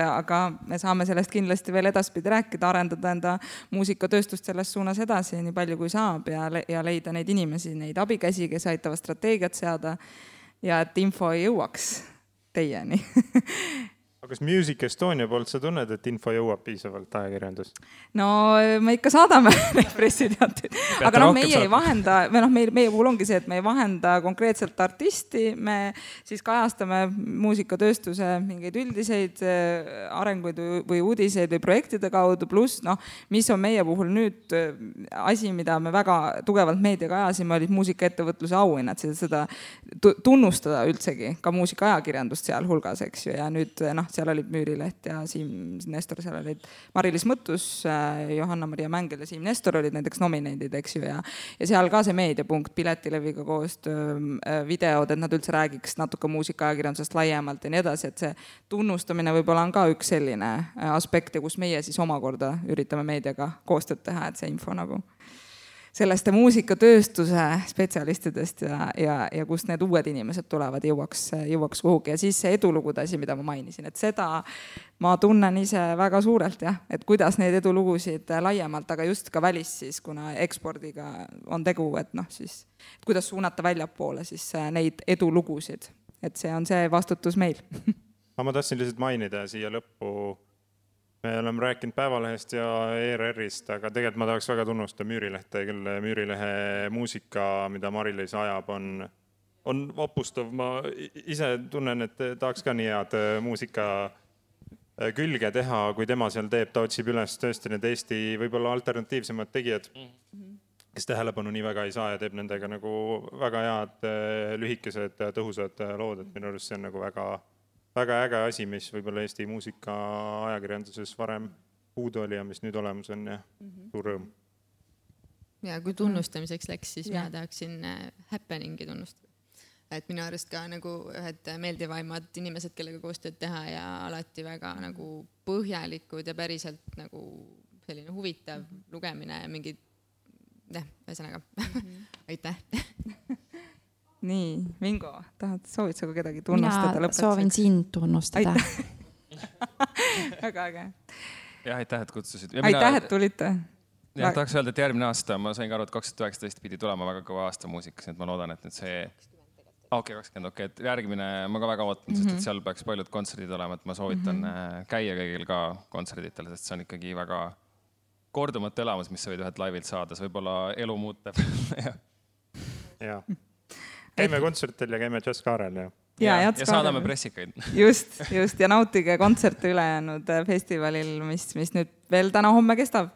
A: aga me saame sellest kindlasti veel edaspidi rääkida, arendada enda muusikatööstust selles suunas edasi nii palju kui saab ja leida neid inimesi, neid abikäsi, kes aitavad strateegiat seada ja et info ei jõuaks teieni.
C: Kas Music Estonia poolt sa tunned, et info jõuab piisavalt ajakirjandus?
A: No me ikka saadame neid pressiteateid, aga meie ei vahenda, meie puhul ongi see, et me ei vahenda konkreetselt artisti, me siis kajastame muusikatööstuse mingeid üldiseid arenguid või uudiseid või projektide kaudu, pluss mis on meie puhul nüüd asi, mida me väga tugevalt meediaga ajasime, olid muusikaettevõtluse auhinnad, seda tunnustada üldsegi, ka muusikaajakirjandust seal hulgas, eks ju, ja nüüd seal olid Müürileht ja Siim Nestor, seal olid Mari-Liis Mõttus, Johanna-Maria Mängel ja Siim Nestor olid näiteks nomineendid, eks ju, ja seal ka see meediapunkt, Piletileviga koostöö, videod, et nad üldse räägiks natuke muusikaajakirjandusest laiemalt ja nii edasi, et see tunnustamine võib-olla on ka üks selline aspekt, kus meie siis omakorda üritame meediaga koostööd teha, et see info nagu sellest muusikatööstuse spetsialistidest ja kust need uued inimesed tulevad, jõuaks kuhugi. Ja siis see edulugude asi, mida ma mainisin, et seda ma tunnen ise väga suurelt, jah, et kuidas neid edulugusid laiemalt, aga just ka välis siis, kuna ekspordiga on tegu, et noh, siis kuidas suunata väljapoole siis neid edulugusid, et see on see vastutus meil.
C: Ma tahtsin lihtsalt mainida siia lõppu. Me oleme rääkinud Päevalehest ja ERR-ist, aga tegelikult ma tahaks väga tunnustada Müürilehte, kelle Müürilehe muusika, mida Mari-Liis ajab, on opustav. Ma ise tunnen, et tahaks ka nii head muusika külge teha, kui tema seal teeb. Ta otsib üles tõesti need Eesti võib-olla alternatiivsemad tegijad, kes tähelepanu nii väga ei saa ja teeb nendega nagu väga head lühikesed tõhusad lood, et minu arust see on nagu väga äge asi, mis võib-olla Eesti muusika ajakirjanduses varem puudu oli ja mis nüüd olemas on ja suur rõõm.
D: Ja kui tunnustamiseks läks, siis mina tahaksin Happeningi tunnustada. Et minu arust ka nagu ühed meeldivaimad inimesed, kellega koostööd teha ja alati väga nagu põhjalikud ja päriselt nagu selline huvitav lugemine ja mingid, ühesõnaga, aitäh.
A: Nii, Mingo, soovid sa kedagi tunnustada lõpetuseks?
E: Mina soovin sind tunnustada.
A: Väga äge.
B: Ja aitäh, et kutsusid.
A: Aitäh, et tulite.
B: Ja tahaks öelda, et järgmine aasta, ma sain ka aru, et 2019 pidi tulema väga kõva aasta muusikas, et ma loodan, et nüüd see... 20, et järgmine ma ka väga ootan, sest et seal peaks paljud kontserdid olema, et ma soovitan käia kõigil ka kontserditel, sest see on ikkagi väga kordumatu elamus, mis sa võid ühed laivilt saada, see võib-olla elu muuteb.
C: Ja. Käime kontsertil ja käime Jazzkaarel
B: ja saadame pressikaid.
A: Just, ja nautige kontserte ülejäänud festivalil, mis nüüd veel täna-homme kestab.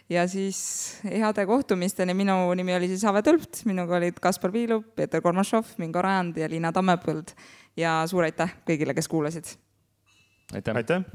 A: Ja siis heade kohtumisteni. Minu nimi oli siis Ave Tõlpt, minuga olid Kaspar Viilup, Peeter Kormašov, Mingo Rajand ja Liina Tammepõld. Ja suur aitäh kõigile, kes kuulasid.
B: Aitäh.